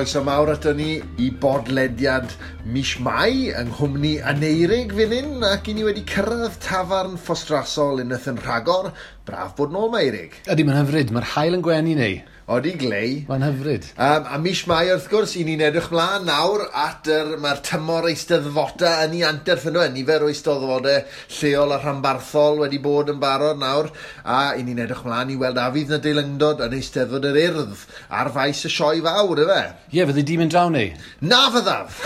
croeso mawr ato ni i bodlediad mis Mai yng nghwmni Aneurig fan hyn, ac i ni wedi cyrraedd tafarn Ffostrasol unwaith yn rhagor. Braf bod nôl 'ma, Eirig. Ydy, mae'n hyfryd. Mae'r haul yn gwenu neu. Odi, glei. Mae'n hyfryd. A mis Mai, wrth gwrs, i ni'n edrych mlaen nawr at mae'r tymor eisteddfodau yn ei anterth yno. Nifer o eisteddfodau lleol a rhanbarthol wedi bod yn barod nawr, a i ni'n edrych mlaen i weld a fydd na deilyngdod yn Eisteddfod yr Urdd ar faes y Sioe Fawr, ife? Ie, yeah, fyddi di mynd draw neu? Na fyddaf!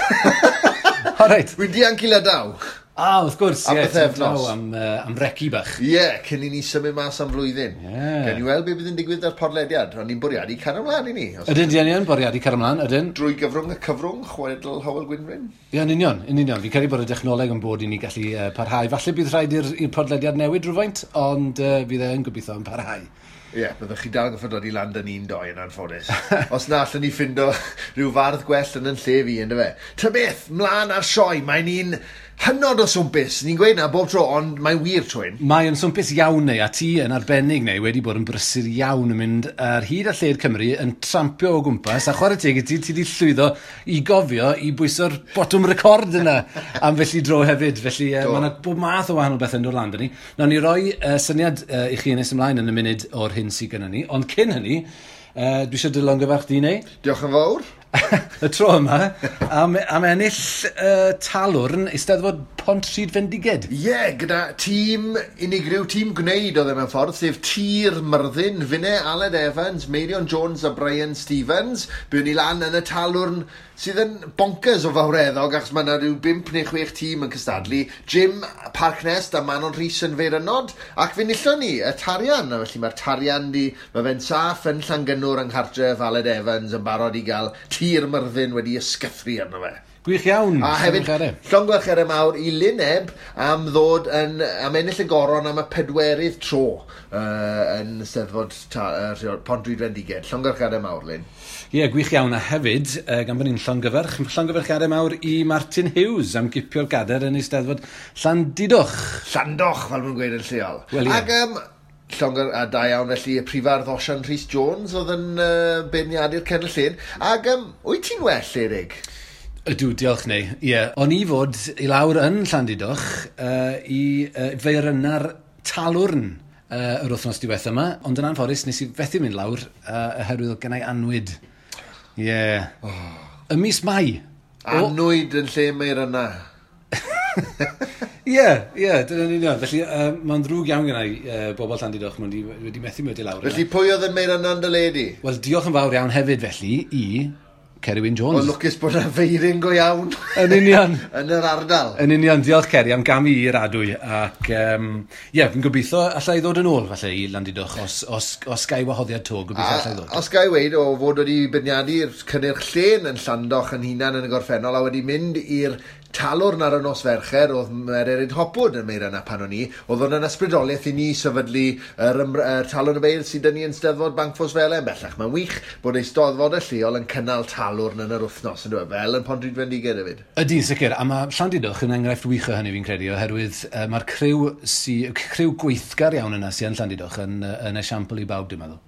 O, reit. Wy'n dianc i Lydaw. Ah, wrth gwrs, am ie. Pythefnos. Am reci bach. Ie, yeah, cyn i ni symud mas am flwyddyn. Yeah. Gawn ni weld beth bydd yn digwydd ar podlediad. Ond ni'n bwriadu cario ymlaen i ni. Ydyn, di yn bwriadu cario ymlaen, ydyn. Drwy gyfrwng y cyfrwng, chwedl Hywel Gwynfryn. Ie, yn union, yn union. Fi'n credu bod y dechnoleg yn bod i ni gallu parhau. Falle bydd rhaid i'r podlediad newid rhywfaint, ond fydd e'n gobeithio yn parhau. Ie, yeah, byddwch chi dal yn gorfod dod i lan dyn ni'n doi yn anffodus. Os na allan ni ffindo rhyw fardd gwell yn yn lle fi, ynddo fe. Ta beth, mlaen ar sioe, mae'n un hynod o swmpus. Ni'n gweud na bob tro, ond mae'n wir trwy'n. Mae'n swmpus iawn neu, a ti yn arbennig neu, wedi bod yn brysur iawn yn mynd ar hyd a lled Cymru yn trampio o gwmpas, a chwarae teg i ti, ti wedi llwyddo i gofio i bwyso'r botwm record yna am felly dro hefyd. Felly mae yna bob math o wahanol bethau yn dod lan 'da ni. Nawn ni roi syniad i chi nes ymlaen yn y munud o'r hyn sydd gyda ni, ond cyn hynny, dwi eisiau dy longyfarch di neu. Diolch yn fawr. Y tro yma, am ennill talwrn Eisteddfod Pontrhydfendiged. Ie, yeah, gyda tîm unigryw, tîm gwneud oedd e mewn ffordd, sef Tir Myrddin, Finne, Aled Evans, Meirion Jones a Brian Stevens. Buon ni lan yn y talwrn sydd yn bonkers o fawreddog, achos mae yna rhyw 5 neu 6 tîm yn cystadlu. Jim Parknest a Manon Rhys yn Feirynod, ac fe nillon ni y tarian. A felly mae'r tarian di, mae fe'n saff yn Llangynnwr yng nghartref Aled Evans yn barod i gael Tir Myrddin wedi ysgythru arno fe. Gwych iawn. A hefyd, llongyfarchiadau mawr i Lyneb am ddod yn, am ennill y goron am y 4dd tro yn Eisteddfod Pontrhydfendiged. Llongyfarchiadau mawr, Lyn. Ie, yeah, gwych iawn. A hefyd, gan bod ni'n llongyfarchiadau mawr i Martin Hughes am gipio'r gadair yn Eisteddfod Llandudoch. Llandoch, fel maen gweud yn lleol. Wel, ie. Ac a da iawn felly y prifardd Osian Rhys Jones oedd yn beirniadu'r cenel llun. Ac wyt ti'n well, Erig? Ydw, diolch neu. Ie, yeah. O'n i fod i lawr yn Llandudoch i feirynna'r talwrn yr wythnos diwetha yma, ond yn anffodus nes i fethu mynd lawr oherwydd oedd gennau annwyd. Ie. Yeah. Oh. Y mis Mai. Annwyd yn lle meirynna. Ie, ie, dyna'n union. Felly, mae'n ddrwg iawn gennau bobl Llandudoch, maen wedi methu mynd i lawr. Felly, pwy oedd yn meirynna yn dy le di? Wel, diolch yn fawr iawn hefyd, felly, i Ceri Wyn Jones. O, lwcus bod yna feirin go iawn. Yn union. Yn yr ardal. Yn union, diolch Ceri am gamu i'r adwy. Ac, ie, fi'n gobeithio allai ddod yn ôl, falle, i Landudoch, os gai wahoddiad to, gobeithio allai ddod. Os gai weud, o fod wedi beirniadu'r cynnyrch llên yn Llandoch yn hunan yn y gorffennol, a wedi mynd i'r talwrn ar y nos Fercher, oedd Mererid Hopwood yn meirynna pan o'n i, oedd hwn yn ysbrydoliaeth i ni sefydlu yr talwrn y beirdd sydd 'da ni yn Steddfod Bancffosfelen bellach. Mae'n wych bod eisteddfodau lleol yn cynnal talwrn yn yr wythnos, yn dweud, fel yn Pontrhydfendiged hefyd. Ydy, sicr, a mae Llandudoch yn enghraifft wych o hynny fi'n credu, oherwydd mae'r criw gweithgar iawn yna sy'n Llandudoch yn esiampl i bawb, dwi'n meddwl.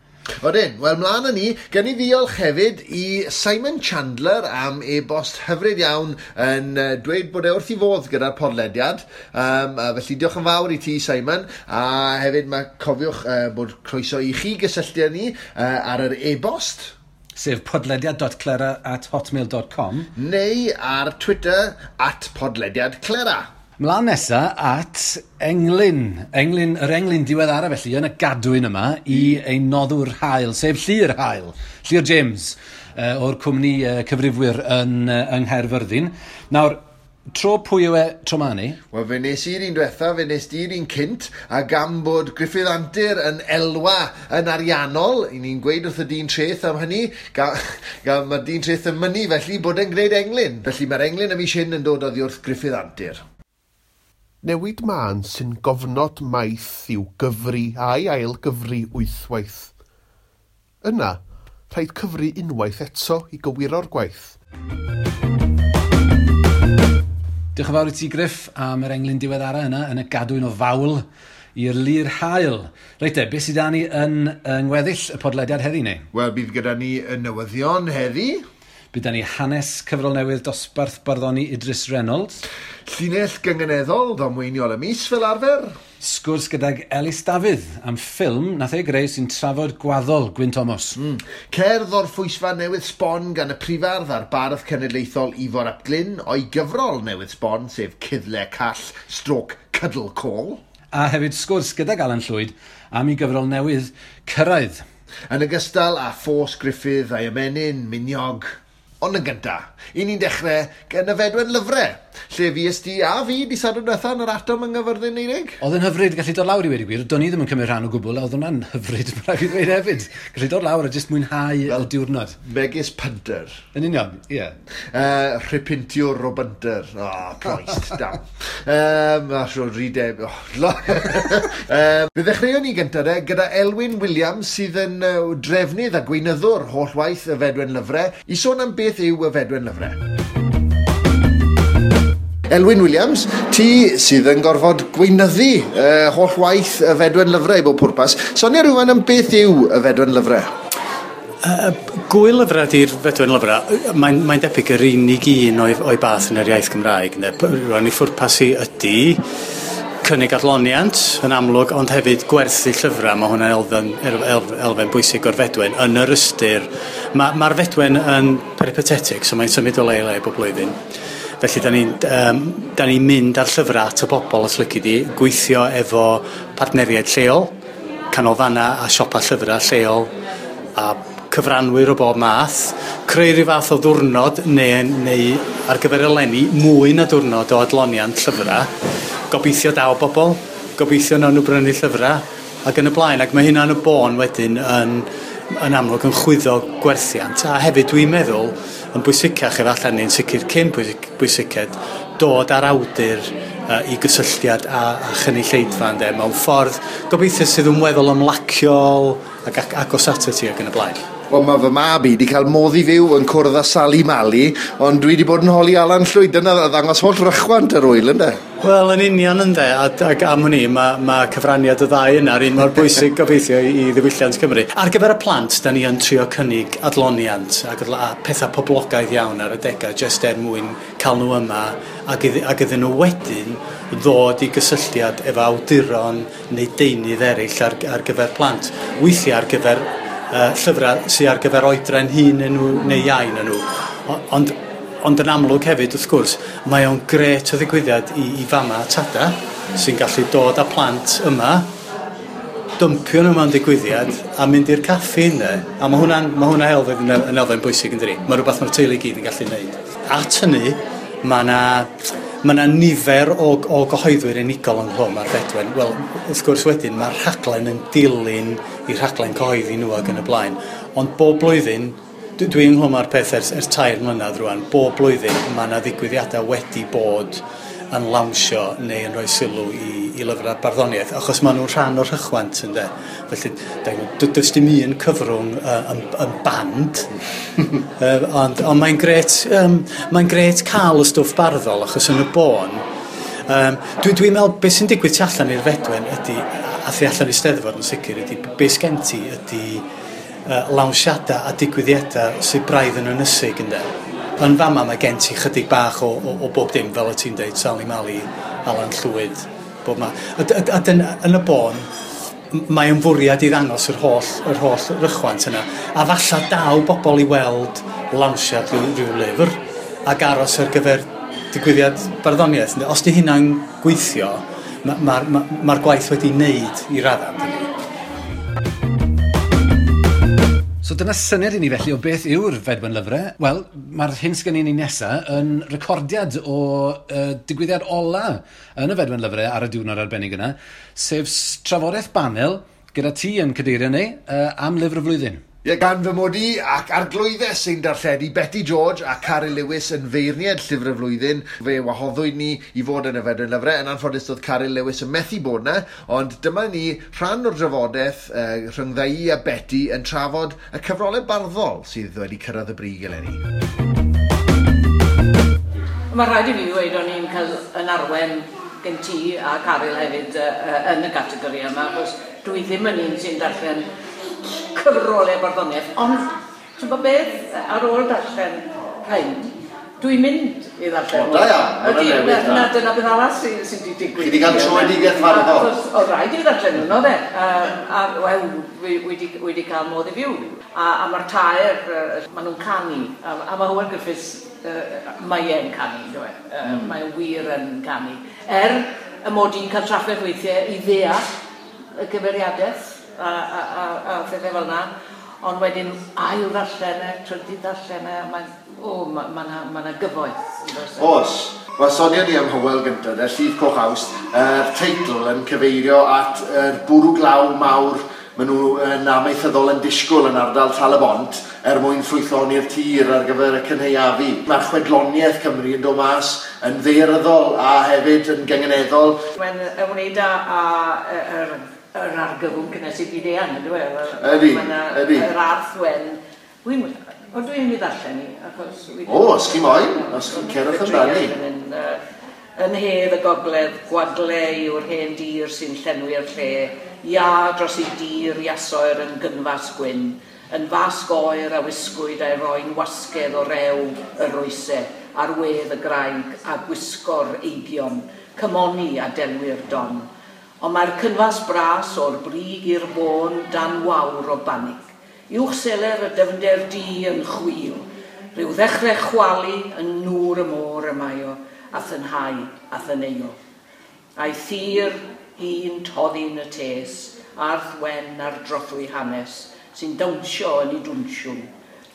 Odyn, wel mlaen â ni, gen i ddiolch hefyd i Simon Chandler am e-bost hyfryd iawn yn dweud bod e wrth i fodd gyda'r podlediad. Felly diolch yn fawr i ti, Simon, a hefyd mae cofiwch bod croeso i chi gysylltu â ni ar yr e-bost. Sef podlediad.clera@hotmail.com. Neu ar Twitter @podlediadclera. Mlaen nesa at englyn, yr englyn diweddara felly, yn y gadwyn yma i ein noddwr hael, sef Llyr Hael, Llyr James, o'r cwmni cyfrifwyr yng Nghaerfyrddin. Nawr, tro pwy yw e tro ma ni? Wel, fe nes i'r un diwetha, fe nes di'r un cynt, a gan bod Gruffydd Antur yn elwa yn ariannol, i ni'n gweud wrth y dyn treth am hynny, gan mae'r dyn treth yn mynnu felly bod e'n gwneud englyn. Felly mae'r englyn y mis hyn yn dod oddi wrth Gruffydd Antur. Newid mân sy'n gofnod maith i'w gyfri a'i ail gyfri wythwaith. Yna, rhaid cyfri unwaith eto i gywiro'r gwaith. Diolch yn fawr i ti, Griff, am yr englyn diweddara yna yn y gadwyn o fawl i'r Lir Hael. Reit te, beth sydd 'da ni yn ngweddill y podlediad heddi, neu? Wel, bydd gyda ni y newyddion heddi. Bydd ni hanes cyfrol newydd dosbarth barddoni Idris Reynolds. Llinell gynganeddol ddamweiniol y mis fel arfer. Sgwrs gydag Elis Dafydd am ffilm nath ei greu sy'n trafod gwaddol Gwyn Thomas. Cerdd o'r Phwysfa newydd sbon gan y prifardd a'r bardd cenedlaethol Ifor ap Glyn o'i gyfrol newydd sbon, sef Cuddle Call Stroke Cuddle Call. A hefyd sgwrs gydag Alan Llwyd am ei gyfrol newydd Cyrraedd. Yn ogystal â Ffos Gruffydd a'i ymenyn Miniog. Ond yn gynta, i ni'n dechrau gan y Fedwen Lyfrau, lle fues di a fi di Sadwrn diwetha yn yr Atom yng Nghaerfyrddin, Eirig. Oedd yn hyfryd gallu dod lawr i weud y gwir. Do'n i ddim yn cymryd rhan o gwbl, a oedd hwnna'n hyfryd, mae rhaid fi ddweud hefyd. Gallu dod lawr a jyst mwynhau y diwrnod. Megis punter. Yn union, ie. Yeah. Rhipintiwr o bunter. Oh, Christ, damn. A sio rideb. Oh, fe ddechreuon ni gyntaf de, gyda Elwyn Williams sydd yn drefnydd a gweinyddwr holl waith y Fedwen Lyfrau, i sôn am beth yw y Fedwen Lyfrau. Elwyn Williams, ti sydd yn gorfod gweinyddu holl waith y Fedwen Lyfrau i bob pwrpas. Sonia rhywun am beth yw y Fedwen Lyfrau? Gwyl lyfrau ydy'r Fedwen Lyfrau. Mae'n debyg yr unig un o'i bath yn yr iaith Gymraeg. Rwan i ffwrpas i ydy cynnig adloniant yn amlwg, ond hefyd gwerthu llyfrau. Mae hwnna'n elfen bwysig o'r Fedwen yn yr ystyr. Mae'r Fedwen yn peripatetic, so mae'n symud o le i le bob blwyddyn. Felly, da ni'n mynd ar llyfrau at y bobl, os lici di, gweithio efo partneriaid lleol, canolfannau a siopa llyfrau lleol, a cyfranwyr o bob math, creu rhyw fath o ddwrnod neu ar gyfer eleni mwy na diwrnod o adloniant llyfrau. Gobeithio daw bobl, gobeithio nawn nhw brynu llyfrau, ac yn y blaen. Ac mae hynna yn y bôn wedyn yn amlwg yn chwyddo gwerthiant. A hefyd dwi'n meddwl, yn bwysicach efallai neu'n sicr cyn bwysiced, dod ar awdur i gysylltiad a chynulleidfa, ynde, mewn ffordd gobeithio sydd yn weddol ymlaciol ac agos ato ti ac yn y blaen. Wel, mae fy mab i wedi cael modd i fyw yn cwrdd â Sali Mali, ond dwi wedi bod yn holi Alan Llwyd. Dyna ddangos holl rychwant yr wyl, ynde? Wel, yn union, ynde, ac am hynny, mae cyfraniad y ddau yna yr un mor bwysig gobeithio i ddiwylliant Cymru. Ar gyfer y plant, da ni yn trio cynnig adloniant ac a pethau poblogaidd iawn ar adegau, jyst er mwyn cael nhw yma ac iddyn nhw wedyn ddod i gysylltiad efo awduron neu deunydd eraill ar gyfer plant. Weithiau ar gyfer llyfrau sydd ar gyfer oedran hŷn nhw neu iau na nhw. Ond yn amlwg hefyd, wrth gwrs, mae o'n grêt o ddigwyddiad i fama a tada sy'n gallu dod â plant yma, dympio nhw mewn digwyddiad a mynd i'r caffi yna. A mae hwnna elfen yn elfen bwysig, yn dydi? Mae rhywbeth mae'r teulu i gyd yn gallu gwneud. At hynny, mae yna nifer o gyhoeddwyr unigol ynghlwm ar Fedwen. Wel, wrth gwrs wedyn, mae'r rhaglen yn dilyn i rhaglen cyhoeddi nhw ac yn y blaen. Ond bob blwyddyn, dwi ynghlwm ar peth ers 3 mlynedd rwan, bob blwyddyn mae yna ddigwyddiadau wedi bod yn lawnsio neu yn rhoi sylw i lyfrau barddoniaeth, achos maen nhw'n rhan o'r rhychwant, ynde. Felly, does dim un cyfrwng yn band, ond mae'n grêt cael y stwff barddol, achos yn y bôn, dwi'n meddwl beth sy'n digwydd tu allan i'r Fedwen ydy, a thu allan i Steddfod yn sicr, ydy beth sgen ti ydy lawnsiadau a digwyddiadau sydd braidd yn ynysig, ynde. Yn fama mae gen ti chydig bach o bob dim, fel y ti'n deud, Sali Mali, Alan Llwyd, bob ma. A yn y bôn, mae yn fwriad i ddangos yr holl rychwant yna. A falla daw bobl i weld lawnsiad rhyw lyfr ac aros ar gyfer digwyddiad barddoniaeth. Os di hynna'n gweithio, mae'r gwaith wedi wneud i raddau. So dyna syniad i ni felly o beth yw'r Fedwen Lyfrau. Wel, mae'r hyn sgen i ni nesaf yn recordiad o digwyddiad ola yn y Fedwen Lyfrau ar y diwrnod arbennig yna, sef trafodaeth banel gyda ti yn cadeirio ni am lyfr y flwyddyn. Ie, gan fy mod i ac arglwyddes sy'n darlledu Betty George a Caryl Lewis yn feirniad llyfr y flwyddyn. Fe wahoddwyd ni i fod yn y Fedwen Lyfrau. Yn anffodus doedd Caryl Lewis yn methu bod yna, ond dyma ni rhan o'r drafodaeth rhyngdda i a Betty yn trafod y cyfrolau barddol sydd wedi cyrraedd y brig eleni. Mae rhaid i fi ddweud o'n i'n cael yn arwen gen ti a Caryl hefyd yn y categori yma, achos dwi ddim yn un sy'n darllen cyfrolau barddoniaeth, ond ti'n gwybod beth, ar ôl darllen rhain, dwi'n mynd i ddarllen. O, da iawn. Ydy, na, dyna beth arall sydd wedi digwydd. Chi wedi cael tröedigaeth farddol. Oedd rhaid i fi ddarllen nhw, de. A, wel, wedi cael modd i fyw. A mae'r tair, maen nhw'n canu. A mae Hywel Griffiths, mae e'n canu, yndyw e. Mae e wir yn canu. Er y mod i'n cael trafferth weithiau i ddeall y cyfeiriadaeth a phethau fel yna, ond wedyn ail ddarllen e, trydydd ddarllen e, mae'n ma ma na gyfoeth. Oes. Wel, sonion ni am Hywel gyntaf, de, Llif Coch Awst, yr teitl yn cyfeirio at yr bwrw glaw mawr maen nhw yn amaethyddol yn disgwyl yn ardal Tal-y-bont er mwyn ffrwythloni'r tir ar gyfer y cynhaeafu. Mae'r chwedloniaeth Cymru yn dod mas yn ddaearyddol a hefyd yn gynganeddol. Mae'n ymwneud â yr argyfwng cynhesu byd-eang, yndyw e? Ydy, ydy. Yr arth wen. Dwi'n mynd i ddarllen i, achos... O, os chi moyn, os chi'n cerwch amdani. Yn hedd y gogledd, gwagle yw'r hen dir sy'n llenwi'r lle, ia dros ei dir iasoer yn gynfas gwyn, yn fasg oer a wisgwyd a'i roi'n wasgedd o rew y roesau, ar wedd y graig a gwisgo'r eigion, cymoni a delwi'r don. Ond mae'r cynfas bras o'r brig i'r bôn dan wawr o banig. Uwch seler y dyfnder du yn chwil, rhyw ddechrau chwalu yn nŵr y môr y mae o, a thynhau a thyneuo. A'i thir hi'n toddi'n y tes, arth wen ar drothwy hanes, sy'n dawnsio yn ei dwnsiwn.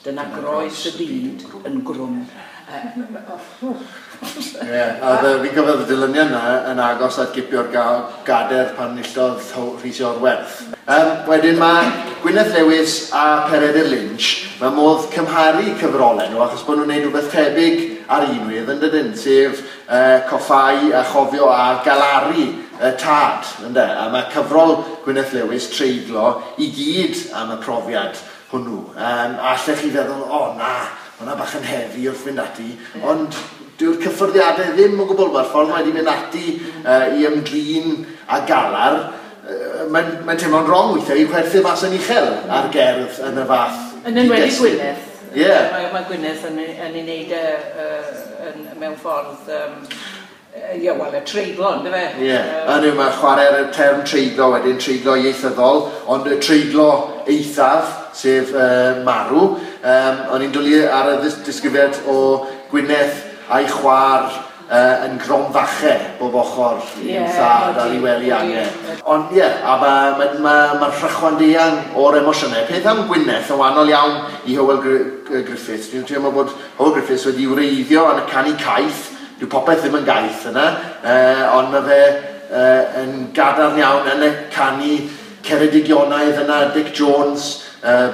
Dyna groes y byd yn grwm. Ie, a fi'n cofio y dilyniant yna yn agos at gipio'r gader pan enillodd Rhys Iorwerth. Wedyn mae Gwyneth Lewis a Peredur Lynch, mae modd cymharu cyfrolau nhw achos bod nhw'n gwneud rhywbeth tebyg ar un wedd yn dydyn, sef coffáu a chofio a galaru y tad, ynde? A mae cyfrol Gwyneth Lewis, Treiglo, i gyd am y profiad hwnnw. A allech chi feddwl, o na, hwnna bach yn heavy wrth fynd ati, ond dyw'r cyffyrddiadau ddim o gwbl, mae'r ffordd mae wedi mynd ati i ymdrin a galar, mae'n teimlo'n wrong weithiau i chwerthu mas yn uchel ar gerdd yn y fath. Yn enwedig Gwyneth. Ie. Mae Gwyneth yn ei wneud mewn ffordd, ie, wel, y treiglo, ynddo fe? Ie, a mae chwarae ar y term treiglo wedyn, treiglo ieithyddol, ond y treiglo eithaf, sef marw. O'n i'n dwlu ar y disgrifiad o Gwyneth a'i chwaer yn gromfachau bob ochr i'w thad ar ei wely ange. Ond ie, a mae'r rhychwant eang o'r emosiynau. Peth am Gwyneth yn wahanol iawn i Hywel Griffiths. Dwi'n teimlo bod Hywel Griffiths wedi wreiddio yn y canu caeth. Dyw popeth ddim yn gaeth yna, ond mae fe yn gadarn iawn yn y canu Ceredigionaidd yna, Dic Jones,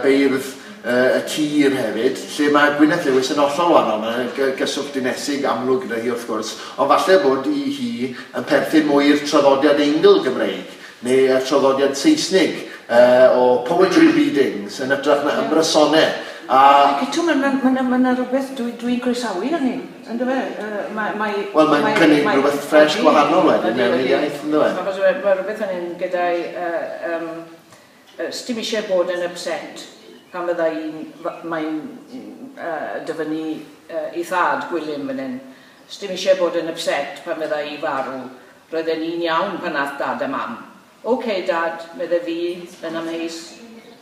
beirdd y tir hefyd, lle mae Gwyneth Lewis yn hollol wahanol. Mae'n gyswllt dinesig amlwg gyda hi wrth gwrs, ond falle bod i hi yn perthyn mwy i'r traddodiad Eingl Gymreig, neu y traddodiad Saesnig o poetry readings yn hytrach na ymrysonau. Ac eto, mae yna rhywbeth dwi'n croesawu hynny, ynddo fe? Wel, mae'n cynnig rhywbeth ffres gwahanol wedyn mewn i'r iaith, ynddo fe? Mae rhywbeth yn un gyda'i... Sdim eisiau bod yn upset pan fydda mae'n dyfynnu ei thad Gwilym fan hyn. Sdim eisiau bod yn upset pan fydda i farw. Roedden ni'n iawn pan nath dad a mam. OK, dad, medde fi yn amheus.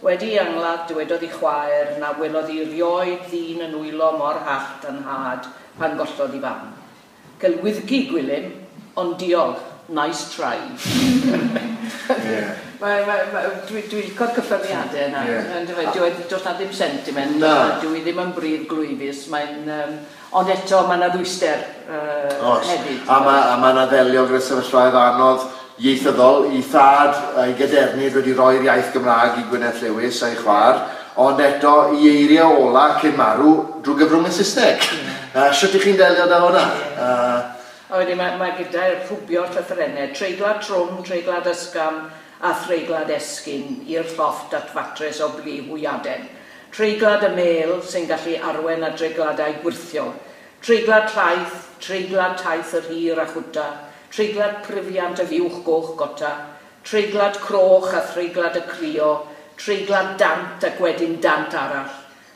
Wedi angladd, dywedodd ei chwaer na welodd hi rioed ddyn yn wylo mor hallt yn nhad pan gollodd ei fam. Celwyddgi Gwilym, ond diolch, nice try. Dwi'n licio'r cyffyrddiadau yna. Does na ddim sentiment, dwi ddim yn bryd glwyfus, ond eto mae yna ddwyster hefyd. A mae yna ddelio gyda sefyllfaoedd anodd ieithyddol, i thad a'i gadernid wedi roi'r iaith Gymraeg i Gwyneth Lewis a'i chwaer, ond eto i eiriau ola cyn marw drwy gyfrwng y Saesneg. Sut ych chi'n delio da hwnna? A wedyn mae gyda'r rhwbio'r llythrennau, treiglad trwm, treiglad ysgafn a threiglad esgyn i'r llofft at fatres o blu hwyaden. Treiglad y mêl sy'n gallu arwen at dreigladau gwyrthiol. Treiglad llaeth, treiglad taith yr hir a chwta, treiglad pryfiant y fuwch goch gota, treiglad croch a threiglad y crio, treiglad dant ac wedyn dant arall.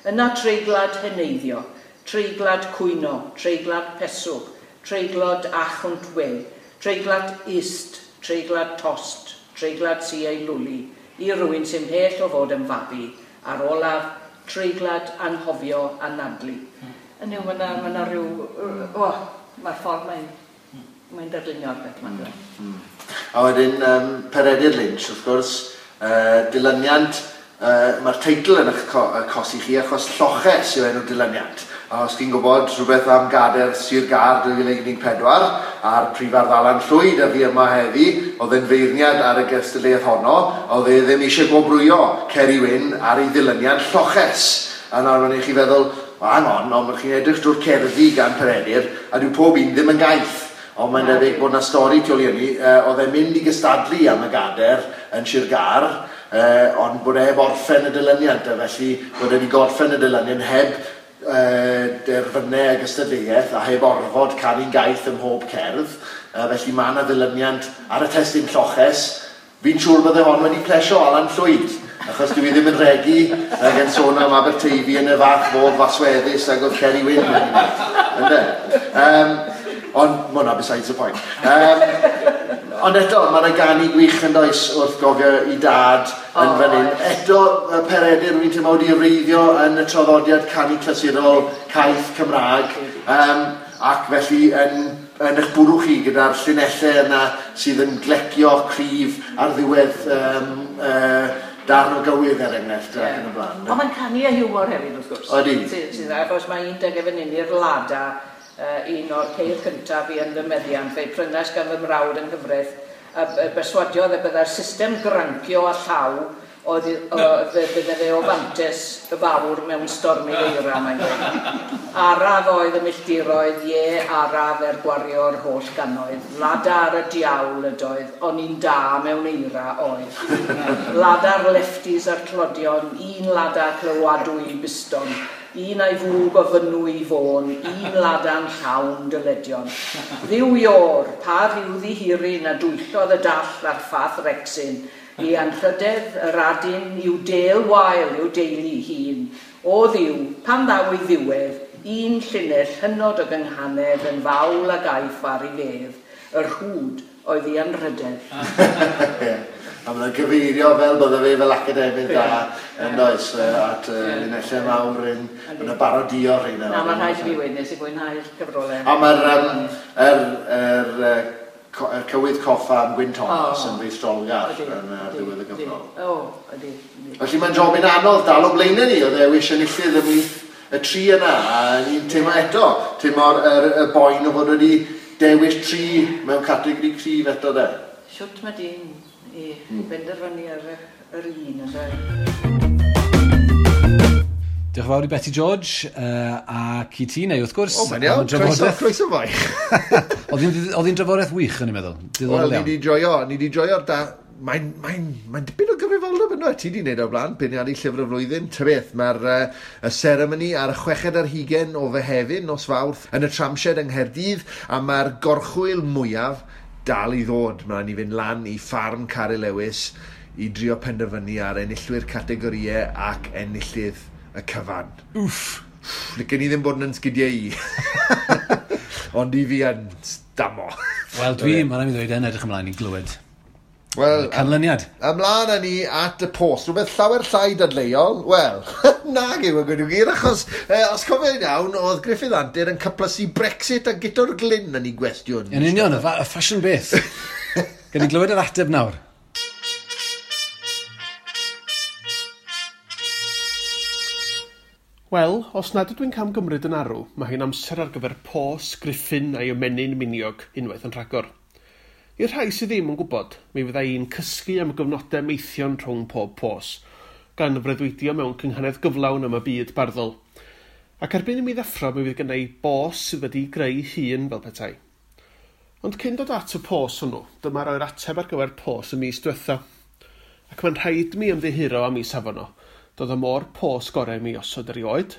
Yna treiglad heneiddio, Treiglad cwyno, treiglad peswg, treiglad achwnt we, treiglad ist, treiglad tost, treiglad si ei lwli, i rywun sy'n mhell o fod yn fabi, a'r olaf, treiglad anghofio anadlu. Yn yw, mae yna ma rhyw... O, mae'r ffordd mae'n darlunio'r beth ma'n dweud. A wedyn, Peredur Lynch, wrth gwrs, dilyniant, mae'r teitl yn eich cosi chi achos Lloches yw enw'r dilyniant. A os chi'n gwybod rhywbeth am Gader Sir Gâr 2014 a'r prifardd Alan Llwyd a fi yma heddi, oedd e'n feirniad ar y gystadleuaeth honno, oedd e ddim eisiau gwobrwyo Ceri Wyn ar ei ddilyniant Lloches. A nawr mae'n i chi feddwl, well, hang on, ond chi'n edrych drwy'r cerddi gan Peredur, a dyw pob un ddim yn gaeth. Ond mae'n debyg bod 'na stori tu ôl i hynny. Oedd e'n mynd i gystadlu am y gader yn Sir Gâr, ond bod e heb orffen y dilyniant, a felly bod e wedi gorffen y dilyniant heb derfynau y gystadleuaeth a heb orfod canu'n gaeth ym mhob cerdd. Felly mae yna ddilyniant ar y testun Lloches. Fi'n siŵr bydde hon wedi plesio Alan Llwyd, achos dwi ddim yn regi ag yn sôn am Aberteifi yn y fath fodd fasweddus ag oedd Ceri Wyn wedi gwneud. Ynde? Ond mae hwnna besides the point. Ond eto, mae yna ganu gwych yn does wrth gofio i dad yn fan hyn. Eto, Peredur, wy'n teimlo wedi wreiddio yn y traddodiad canu clasurol caeth Cymraeg, ac felly yn eich bwrw chi gyda'r llinellau yna sydd yn glecio cryf ar ddiwedd darn o gywydd er enghraifft ac yn y blaen. Ond mae'n canu a hiwmor hefyd, wrth gwrs. Odi. Sydd, achos mae un deg fan hyn i'r Lada, un o'r ceir cyntaf i yn fy meddiant, fe'i prynais gan fy mrawd yng nghyfraith, a berswadiodd y byddai'r system grancio a llaw oedd bydde fe o fantes y fawr mewn stormydd eira, mae'n dweud. Araf oedd y milltiroedd, ie, araf er gwario'r holl gannoedd. Lada ar y diawl ydoedd, ond un da mewn eira oedd. Lada'r lefties a'r tlodion, un lada clywadwy biston, un a'i fwg o fynwy i fôn, un lada'n llawn dyledion. Ddiw ior, pa rhyw ddihiryn a dwyllodd y dall a'r ffath rexyn, i anrhydedd yr adyn i'w del wael i'w deulu hun. O ddiw, pan ddaw ei ddiwedd, un llinell hynod o gynghanedd yn fawl a gaiff ar ei fedd, yr hwd oedd ei anrhydedd. A mae'n gyfeirio fel bydde fe fel academydd da yn does at linellau mawr yn y barodio rheina. Na, mae'n rhaid i fi weud, nes i fwynhau'r cyfrolau. A mae'r cywydd coffa am Gwyn Thomas yn feistrolgar yn ddiwedd y gyfrol. O, ydy. Felly mae'n jobyn anodd dal o blaenau ni, o ddewis enillydd ymhlith y tri yna, a ni'n teimlo eto, teimlo'r y boen o fod wedi dewis tri mewn categori cryf eto de. Shwt mae dyn i benderfynu ar yr un, ynde? Diolch yn fawr i Beti George ac i ti, neu wrth gwrs. O, mae'n iawn, croeso fwy. Oedd hi'n drafodaeth wych, o'n i'n meddwl. Wel, ni wedi joio'r da... Mae'n dipyn o gyfrifoldeb yno. Ti wedi wneud o'r blaen, beirniadu llyfr y flwyddyn. Ta beth, mae'r y seremoni ar y 26 o Fehefin, nos Fawrth, yn y Tramshed yng Nghaerdydd, a mae'r gorchwyl mwyaf dal i ddod. Mae'n i fynd lan i ffarm Caryl Lewis i drio penderfynu ar enillwyr categorïau ac enillydd y cyfan. Wff! Licen i ddim bod yn sgidiau i. Ond i fi yn stamo. Wel, dwi, mae'n rhaid i ddweud, yn edrych ymlaen i glywed. Wel, canlyniad. Ymlaen â ni at y post. Rhywbeth llawer llai dadleuol. Wel, nag yw y gwir gwir, achos os cofio'n iawn, oedd Gruffydd Antur yn cyplysu Brexit a Guto'r Glyn yn ei gwestiwn. Yn union, y ffasiwn beth. Gan i glywed yr ateb nawr. Wel, os nad ydw i'n camgymryd yn arw, mae hi'n amser ar gyfer pos, Griffin a'i ymenyn miniog unwaith yn rhagor. I'r rhai sydd ddim yn gwybod, mi fydda i'n cysgu am gyfnodau meithion rhwng pob pos, gan freuddwydio mewn cynghanedd gyflawn am y byd barddol. Ac erbyn i mi ddeffro, mi fydd gynna i bos sydd wedi greu hun fel petai. Ond cyn dod at y pos hwnnw, dyma roi'r ateb ar gyfer pos y mis diwetha. Ac mae'n rhaid mi ymddiheuro am ei safon o. Doedd o mor pos gorau mi osod erioed,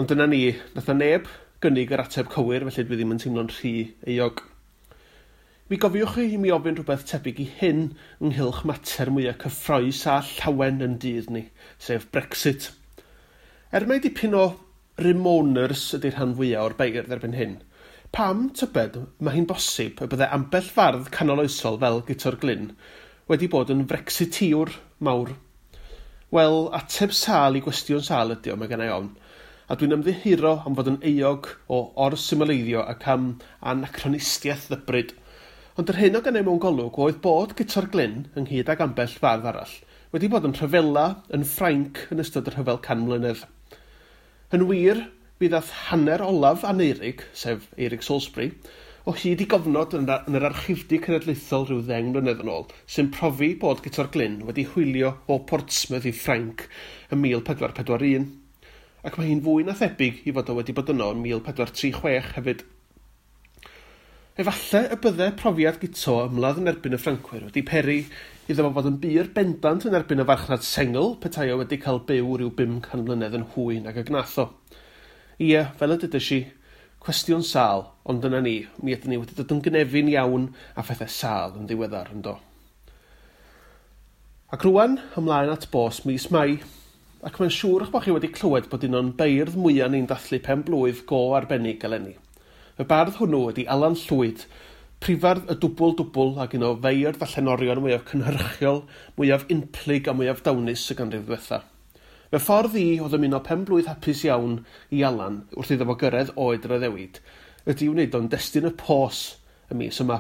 ond dyna ni, nath na neb gynnig yr ateb cywir, felly dwi ddim yn teimlo'n rhy euog. Mi gofiwch chi i mi ofyn rhywbeth tebyg i hyn ynghylch mater mwyaf cyffrous a llawen yn dydd ni, sef Brexit. Er mai dipyn o Remoaners ydy'r rhan fwyaf o'r beirdd erbyn hyn, pam, tybed, mae hi'n bosib y bydde ambell fardd canoloesol fel Guto'r Glyn wedi bod yn Brexiteer mawr? Wel, ateb sâl i gwestiwn sâl ydi o, mae gennai ofn. A dwi'n ymddiheuro am fod yn euog o or-symleiddio ac am anacronistiaeth ddybryd. Ond yr hyn o gennai mewn golwg oedd bod Guto'r Glyn, ynghyd ag ambell fardd arall, wedi bod yn rhyfela yn Ffrainc yn ystod y rhyfel can mlynedd. Yn wir, mi ddath hanner olaf Aneurig, sef Eurig Salisbury, o hyd i gofnod yn yr archifdy cenedlaethol rhyw 10 mlynedd yn ôl, sy'n profi bod Guto'r Glyn wedi hwylio o Portsmouth i Ffrainc ym 1441. Ac mae hi'n fwy na thebyg i fod o wedi bod yno yn 1436 hefyd. Efallai y bydde profiad Guto ymladd yn erbyn y Ffrancwyr wedi peri iddo fo fod yn bur bendant yn erbyn y farchnad sengl petai o wedi cael byw rhyw 500 mlynedd yn hwy nag y gnath o. Ie, fel y dydys i, cwestiwn sâl, ond dyna ni, mi ydyn ni wedi dod yn gynefin iawn a phethau sâl yn ddiweddar, yndo. Ac rwan, ymlaen at bos mis Mai, ac mae'n siŵr eich bod chi wedi clywed bod un o'n beirdd mwyaf ni'n dathlu pen blwydd go arbennig eleni. Y bardd hwnnw ydi Alan Llwyd, prifardd y dwbl dwbl ac un o feirdd a llenorion mwyaf cynhyrchiol, mwyaf unplyg a mwyaf dawnus y ganrif ddiwetha. Fy ffordd i o ddymuno pen blwydd hapus iawn i Alan wrth iddo fo gyrraedd oed yr addewid ydy wneud o'n destun y pos y mis yma.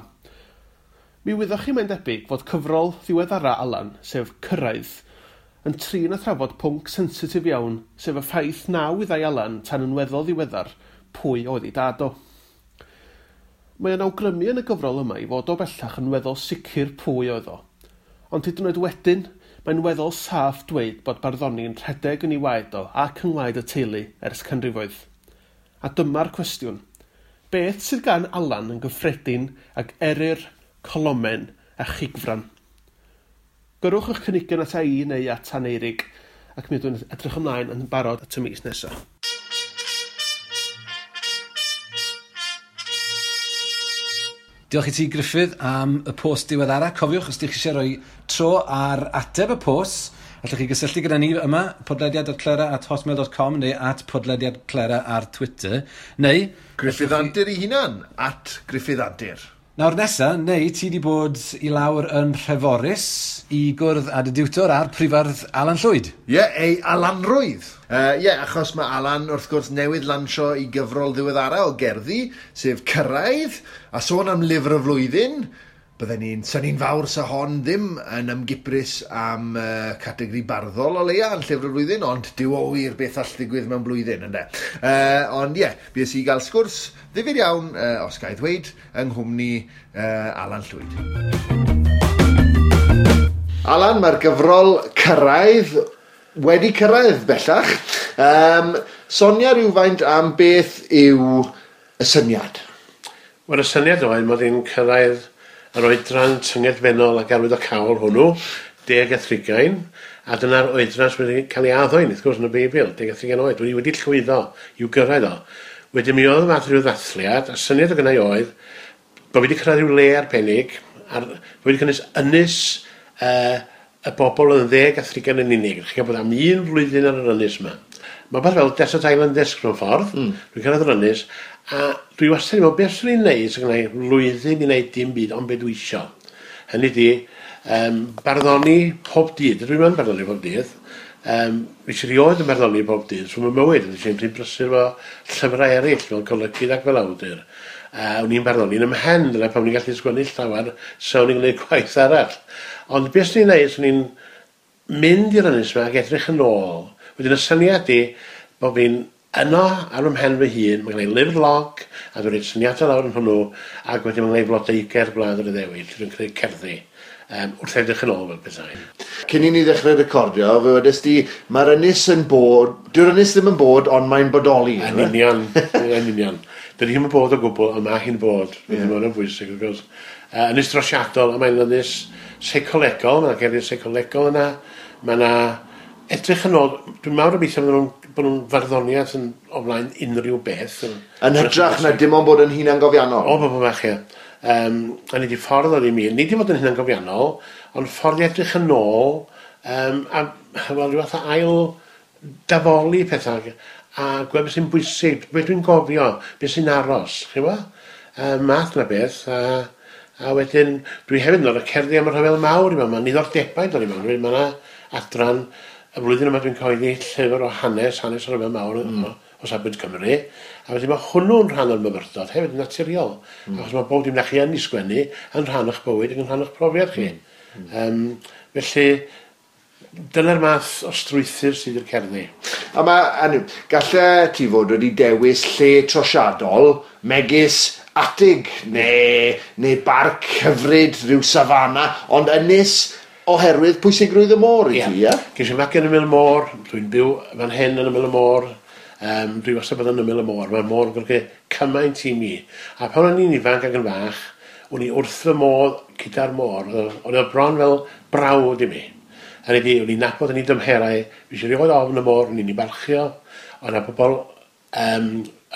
Mi wyddoch chi mae'n debyg fod cyfrol ddiweddara Alan, sef Cyrraedd, yn trin a thrafod pwnc sensitif iawn, sef y ffaith na wyddai Alan tan yn weddol ddiweddar pwy oedd ei dad o. Mae o'n awgrymu yn y gyfrol yma i fod o bellach yn weddol sicr pwy oedd o. Ond hyd yn oed wedyn, mae'n weddol saff dweud bod barddoni'n rhedeg yn ei waed o ac yng ngwaed y teulu ers canrifoedd. A dyma'r cwestiwn. Beth sydd gan Alan yn gyffredin ag Eryr, Colomen a Chigfran? Gyrrwch eich cynigion ata i neu at Aneurig, ac mi ydw i'n edrych ymlaen yn barod at y mis nesaf. Diolch i ti, Gruffydd, am y post diweddara. Cofiwch, os ydych chi eisiau rhoi tro ar ateb y post, allwch chi gysylltu gyda ni yma, podlediad.clera@hotmail.com neu @podlediadclera ar Twitter, neu... Gruffydd Antur ei hunan, @GruffyddAntur. Nawr nesa, neu ti di bod i lawr yn Nhreforys i gwrdd â dy diwtor a'r prifardd Alan Llwyd. Ie, yeah, ei Alanrwydd. Ie, yeah, achos mae Alan wrth gwrs newydd lansio i gyfrol ddiweddara o gerddi, sef Cyrraedd, a sôn am lyfr y flwyddyn, bydden ni'n synnu'n fawr sa hon ddim yn ymgiprys am categori barddol o leia yn llyfr y flwyddyn, ond dyw o wir beth all ddigwydd mewn blwyddyn, ynde. Ond ie, yeah, bues i gael sgwrs ddifyr iawn, os ga i ddweud, yng nghwmni Alan Llwyd. Alan, mae'r gyfrol Cyrraedd wedi cyrraedd bellach. Sonia rhywfaint am beth yw y syniad? Wel, y syniad oedd mod i'n cyrraedd yr oedran tyngedfennol ac arwyddocaol hwnnw, 10 a 30, a dyna'r oedran sydd wedi cael ei addo i ni, wrth gwrs, yn y Beibl, 10 a 30 oed. Dwi wedi llwyddo i'w gyrraedd o. Wedyn mi oedd y fath rhyw ddathliad, a syniad o gynnau oedd bod fi wedi cyrraedd rhyw le arbennig, ar, bod wedi cynnwys ynys y bobl oedd yn 10 a 30 yn unig. Chi'n gwybod am un flwyddyn ar yr ynys yma. Mae beth fel Desert Island Disc mewn ffordd. Dwi'n cyrraedd yr ynys, a dwi wastad yn meddwl, beth swn i'n neud sy'n gwneud flwyddyn i wneud dim byd, ond beth dwi isio. Hynny di, barddoni pob dydd. Dwi'n mynd barddoni pob dydd. Fi eisiau rioed yn barddoni pob dydd, so mae mywyd, yn eisiau rhy brysur efo llyfrau eraill, fel golygydd ac fel awdur. O'n i'n barddoni yn ymhen, dyna pam o'n i'n gallu sgwennu llawer, so o'n i'n gwneud gwaith arall. Ond beth swn i'n neud, swn i'n mynd i'r ynys yma ac edrych yn ôl. Wedyn y syniad di bod fi'n yno ar fy mhen fy hun, mae gen i lyfr log, a dwi'n rhoi syniadau lawr yn hwnnw, ac wedyn mae gen i flodeuger Gwlad yr Iddewid, lle dwi'n creu cerddi, wrth edrych yn ôl fel petai. Cyn i ni ddechrau recordio, fe wedes di, mae'r ynys yn bod, dyw'r ynys ddim yn bod, ond mae'n bodoli. Yn union, yn union. Dydy hi'm yn bod o gwbl, ond mae hi'n bod. Mae hwnna'n bwysig, wrth gwrs. Ynys drosiadol, a mae'n ynys seicolegol, mae'n gerddi seicolegol yna, mae yna edrych yn ôl, dwi'n mawr obeithio bod nhw'n farddoniaeth yn o flaen unrhyw beth. Yn hytrach na dim ond bod yn hunangofiannol? O, bobl bach, ie. A ni di ffordd oedd i mi, ni di fod yn hunangofiannol, ond ffordd i edrych yn ôl, a wel, rhyw fath o ail dafoli pethau, a gweld beth sy'n bwysig, beth dwi'n gofio, beth sy'n aros, chi'n gwybod? Math na beth, a wedyn dwi hefyd yn dod â cerddi am y rhyfel mawr i mewn, mae'n niddordebau dod i mewn, mae yna adran, y flwyddyn yma dwi'n cyhoeddi llyfr o hanes, hanes y rhyfel mawr o safbwynt Cymru, a wedyn mae hwnnw'n rhan o'r myfyrdod hefyd yn naturiol, achos mae bob dim na chi yn ei sgwennu yn rhan o'ch bywyd ac yn rhan o'ch profiad chi. Felly, dyna'r math o strwythur sydd i'r cerddi. A mae, galle ti fod wedi dewis lle trosiadol, megis atig neu barc hyfryd, rhyw safana, ond ynys oherwydd pwysigrwydd y môr i ti, ie? Ges i magu yn ymyl y môr, dwi'n byw fan hyn yn ymyl y môr, dwi wastad bod yn ymyl y môr, mae'r môr yn golygu cymaint i mi. A pan o'n i'n ifanc ac yn fach, o'n i wrth fy modd gyda'r môr, oedd o bron fel brawd i mi. A o'n i'n nabod yn ei dymherau, fi eisiau rioed ofn y môr, o'n i'n ei barchio, oedd yna bobl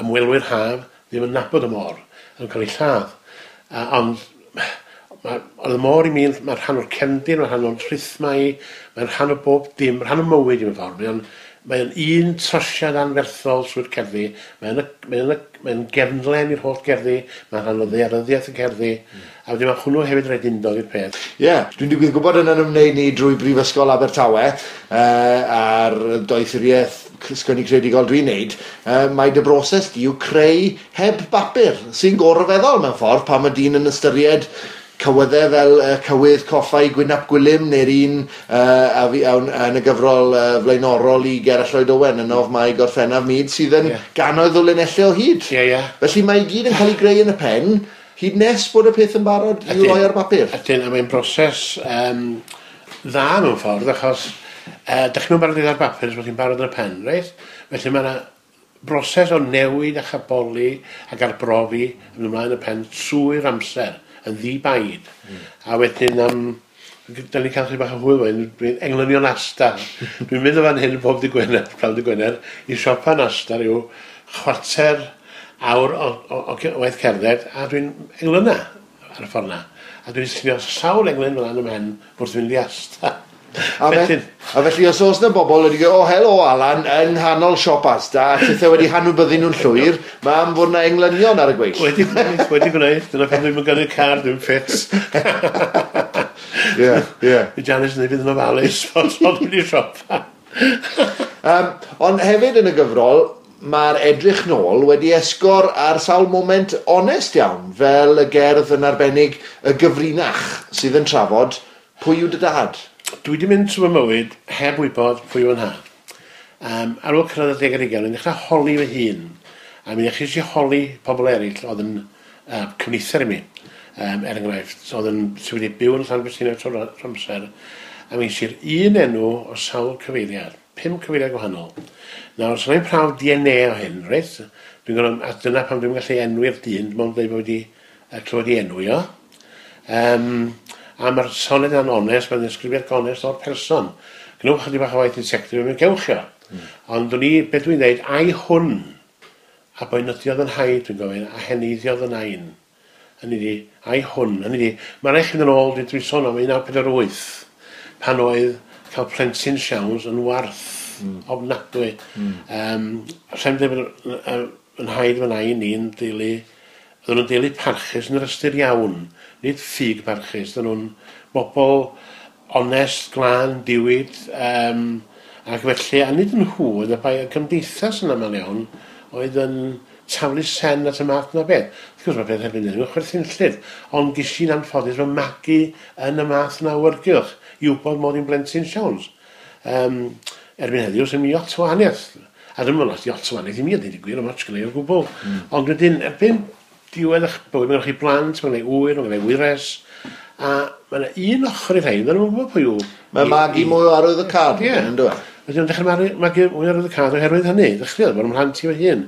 ymwelwyr haf ddim yn nabod y môr, yn cael ei lladd. Ond oedd y môr i mi, mae'n rhan o'r cefndir, mae'n rhan o'r rhythmau, mae'n rhan o bob dim, rhan o mywyd i mewn ffordd. Mae'n un trosiad anferthol trwy'r cerddi, mae'n gefnlen i'r holl gerddi, mae'n rhan o ddaearyddiaeth y cerddi, a wedyn mae hwnnw hefyd rhaid undod i'r peth. Ie, yeah, dwi'n digwydd gwybod yn ymwneud ni drwy Brifysgol Abertawe a'r doethuriaeth sgwennu creadigol dwi'n neud, mae dy broses di yw creu heb bapur, sy'n gorfeddol mewn ffordd pan mae dyn yn ystyried cywyddau fel cywydd coffau Gwyn ap Gwilym neu'r un yn y gyfrol flaenorol i Gerallt Lloyd Owen yn of Mai Gorffennaf Myd sydd yn gannoedd o linellau o hyd. Ie, ie. Felly mae i gyd yn cael ei greu yn y pen hyd nes bod y peth yn barod i'w roi ar bapur. Ydyn, a mae'n broses dda mewn ffordd achos dych chi'n barod i ar bapur os bod chi'n barod yn y pen, reit? Felly mae yna broses o newid a chaboli ac arbrofi yn ymlaen y pen trwy'r amser yn ddi-baid. A wedyn, da ni'n cael chydig bach o hwyl fan, dwi'n englynion Asda. Dwi'n mynd o fan hyn pob dydd Gwener, prynhawn dydd Gwener, i siopa yn Asda rhyw chwarter awr o waith cerdded, a dwi'n englyna ar y ffordd na. A dwi'n llunio sawl englyn fel ym mhen wrth fynd i Asda. A felly os oes yna bobl wedi gweud, o helo Alan, yng nghanol siop Asda, a tithau wedi hanwybyddu nhw'n llwyr, mae am fod yna englynion ar y gweill. Wedi gwneud, dyna pan dwi'n gyrru car, dwi'n ffit. Ie, ie. Fi Janice yn ei fynd yn ofalus, fod dwi'n mynd i siopa. Ond hefyd yn y gyfrol, mae'r edrych nôl wedi esgor ar sawl moment onest iawn, fel y gerdd yn arbennig y gyfrinach sydd yn trafod pwy yw dy dad. Dwi wedi mynd trwy fy mywyd heb wybod pwy yw yn nhad. Ar ôl cyrraedd y 10 ar 20, o'n i'n dechrau holi fy hun. A mi ddechreuais i holi pobl eraill oedd yn cyfnither i mi, er enghraifft, oedd yn sydd wedi byw yn Llanfestiniog trwy'r amser. A mi ges i'r un enw o sawl cyfeiriad, 5 cyfeiriad gwahanol. Nawr, os yna i'n prawf DNA o hyn, reit? Dwi'n gwybod, a dyna pam dwi'n gallu enwi'r dyn, dim ond dweud bod wedi clywed ei enwi o. A mae'r soned yna'n onest, mae'n ddisgrifiad gonest o'r person. Gwnewch chydig bach o waith detective, mae'n gewch o. Ond o'n i, beth dwi'n dweud, ai hwn, a boenydiodd yn haid, dwi'n gofyn, a heneiddiodd yn ain. Hynny ydi, ai hwn, hynny ydi, mae'n rhaid chi fynd yn ôl, dwi'n sôn am 1948, pan oedd cael plentyn siawns yn warth ofnadwy. Rhaid mi ddweud bod yn haid fy nain i'n deulu, oedden nhw'n deulu parchus yn yr ystyr iawn, nid ffug parchus, oedden nhw'n bobl onest, glân, diwyd, ac felly, a nid yn nhw, oedd y bai y gymdeithas yn aml iawn, oedd yn taflu sen at y math na beth. Wrth gwrs mae peth erbyn hyn yn chwerthinllyd, ond ges i'n anffodus fy magu yn y math na awyrgylch i wybod mod i'n blentyn siawns. Erbyn heddiw, sy'n mi lot o wahaniaeth. A ddim yn lot o wahaniaeth i mi, a dweud y gwir, am ots gyda i o gwbl. Ond wedyn, erbyn diwedd eich bywyd, mae gennych chi blant, mae gennych chi ŵyr, mae gennych chi wyres, a mae yna un ochr i'r rhain, dyn nhw'n gwybod pwy yw. Mae magu mwy o arwydd y cad, yn dweud. Wedyn, nhw'n dechrau magu mwy o arwydd y cad oherwydd hynny, ddechreuodd bod ymhlant i fy hun.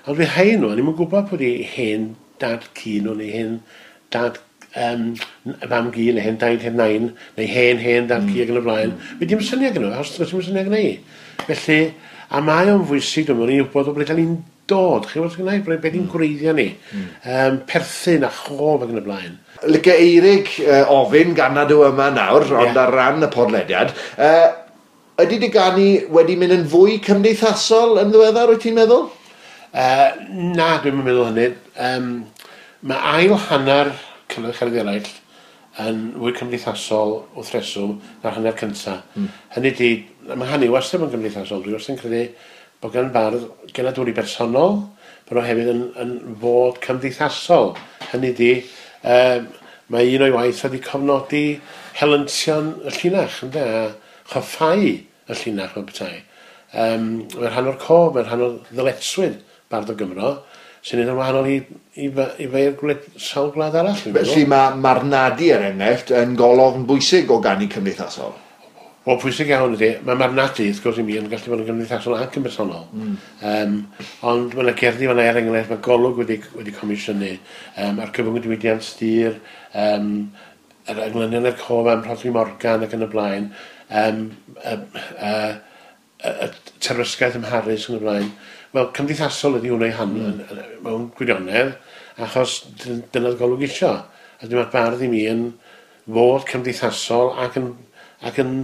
Ond fi rhain nhw, o'n i'm yn gwybod pwy di hen dad cu nhw, neu hen dad fam gu, neu hen daid, hen nain, neu hen dad cu ac yn y blaen. Fi dim syniad gyda nhw, achos does dim syniad gyda i. Felly, a mae o'n fwysig, dwi'n meddwl, i wybod o ble da ni'n dod, chi'n gwybod gynnau, ble ni'n gwreiddio ni, perthyn a chof ac yn y blaen. Licio Eirig ofyn gan nad yw yma nawr, ond ar ran y podlediad, Ydy dy ganu wedi mynd yn fwy cymdeithasol yn ddiweddar, wyt ti'n meddwl? Na, dwi'm yn meddwl hynny. Mae ail hanner Cyfnod Cerddi Eraill yn fwy cymdeithasol wrth reswm na'r hanner cynta. Hynny ydi, mae hynny wastad yn gymdeithasol. Dwi wastad yn credu bod gan bardd genadwri bersonol, bod o hefyd yn fod cymdeithasol. Hynny ydi, mae un o'i waith wedi cofnodi helyntion y llinach, ynde, a choffau y llinach mewn petai. Mae'n rhan o'r cof, mae'n rhan o'r ddyletswydd bardd o Gymro, sy'n neud yn wahanol i feir sawl gwlad arall. Felly mae marnadu, er enghraifft, yn golofn bwysig o ganu cymdeithasol. Wel, pwysig iawn ydy. Mae marnadu, wrth gwrs i mi, yn gallu bod yn gymdeithasol ac yn bersonol. Ond mae yna gerddi fan'na, er enghraifft, mae Golwg wedi comisiynu, ar gyfwng y diwydiant dur, yr englynion i'r cof am Rhodri Morgan ac yn y blaen, y terfysgaeth ym Mharis yn y blaen. Wel, cymdeithasol ydy hwnna i han mewn gwirionedd, achos dyna'r Golwg isio. A dyma'r bardd i mi yn fod cymdeithasol ac yn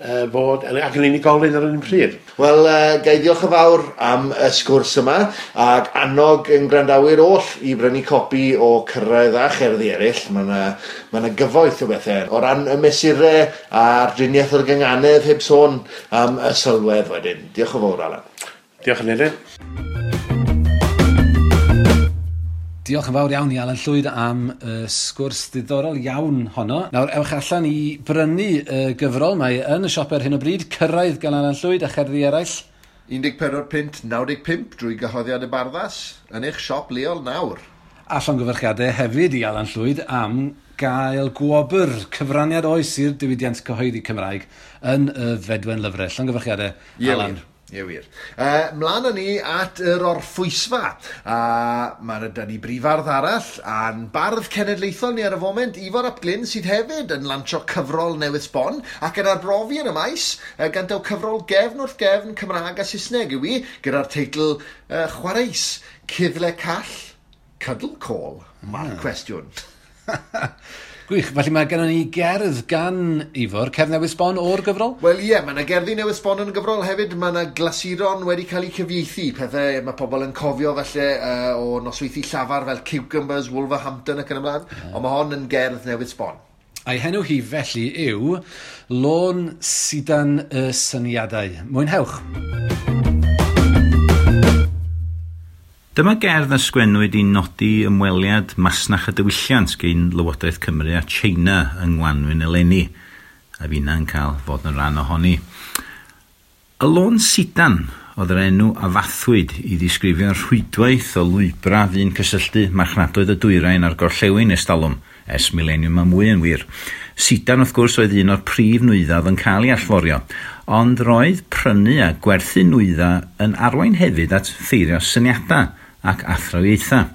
unigolyn ar yr un pryd. Wel, ga i ddiolch yn fawr am y sgwrs yma, ac annog yn gwrandawyr oll i brynu copi o Cyrraedd a Cherddi Eraill. Mae yna gyfoeth o bethau. O ran y mesurau a'r driniaeth o'r gynganedd, heb sôn am y sylwedd wedyn. Diolch yn fawr, Alan. Diolch yn fawr. Diolch yn fawr iawn i Alan Llwyd am y sgwrs ddiddorol iawn honno. Nawr, ewch allan i brynu y gyfrol. Mae yn y siop ar hyn o bryd, Cyrraedd gan Alan Llwyd a Cherddi Eraill. £14.95 drwy gyhoeddiad y Barddas yn eich siop leol nawr. A llongyfarchiadau hefyd i Alan Llwyd am gael gwobr cyfraniad oes i'r diwydiant cyhoeddi Cymraeg yn y Fedwen Lyfrau. Llongyfarchiadau, Alan. Ie wir. Mlaen â ni at yr orffwysfa. A mae yna ni brifardd arall a'n bardd cenedlaethol ni ar y foment, Ifor ap Glyn, sydd hefyd yn lansio cyfrol newydd sbon ac yn arbrofi yn y maes, gan daw cyfrol gefn wrth gefn Cymraeg a Saesneg yw i, gyda'r teitl Chwareus, Cuddle Call, Cuddle Call, mae'r cwestiwn. Gwych, felly mae gennym ni gerdd gan Ifor, cerdd newydd sbon o'r gyfrol? Wel ie, mae yna gerddi newydd sbon yn y gyfrol hefyd, mae yna glasuron wedi cael eu cyfieithu, pethau mae pobl yn cofio falle o nosweithi llafar fel Cucumbers, Wolverhampton ac yn ymlaen, ond mae hon yn gerdd newydd sbon. A'i henw hi felly yw Lôn Sidan y Syniadau. Mwynhewch! Dyma gerdd a sgwennwyd i nodi ymweliad masnach a diwylliant gan Lywodraeth Cymru a China yng Ngwanwyn eleni, a finna'n cael fod yn rhan ohoni. Y Lôn Sidan oedd yr enw a fathwyd i ddisgrifio'r rhwydwaith o lwybrau fu'n cysylltu marchnadoedd y dwyrain a'r gorllewin ers talwm, ers mileniwm a mwy yn wir. Sidan, wrth gwrs, oedd un o'r prif nwyddau oedd yn cael ei allforio, ond roedd prynu a gwerthu nwyddau yn arwain hefyd at ffeirio syniadau ac athrawiaethau.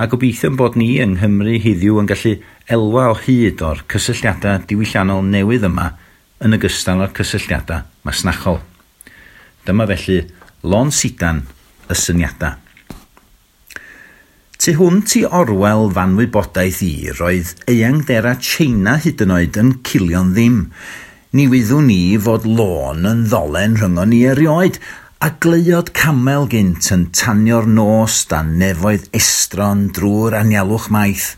A gobeithio bod ni yng Nghymru heddiw yn gallu elwa o hyd o'r cysylltiadau diwylliannol newydd yma yn ogystal â'r cysylltiadau masnachol. Dyma felly Lôn Sidan y Syniadau. Tu hwnt i orwel fanwybodaeth i, roedd eangdera China hyd yn oed yn cilio'n ddim. Ni wyddwn ni fod lôn yn ddolen rhyngon ni erioed, a gleuod camel gynt yn tanio'r nos dan nefoedd estron drwy'r anialwch maith.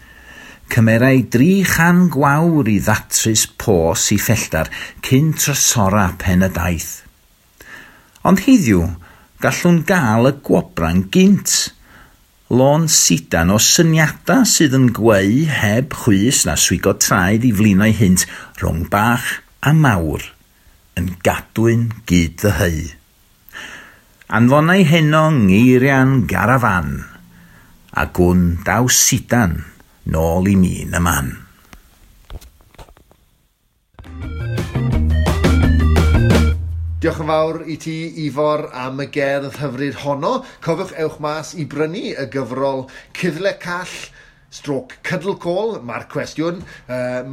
Cymerai 300 gwawr i ddatrys pos i ffelltar cyn trysora pen y daith. Ond heddiw, gallwn gael y gwobran gynt. Lôn sidan o syniadau sydd yn gweu heb chwys na swigo traed i flino'i hynt rhwng bach a mawr, yn gadwyn gyd ddyheu. Anfonau heno ngeirian garafan, a gwn daw sidan nôl i mi yn y man. Diolch yn fawr i ti, Ifor, am y gerdd hyfryd honno. Cofiwch ewch mas i brynu y gyfrol Cuddle Call stroke Cuddle Call, mae'r cwestiwn,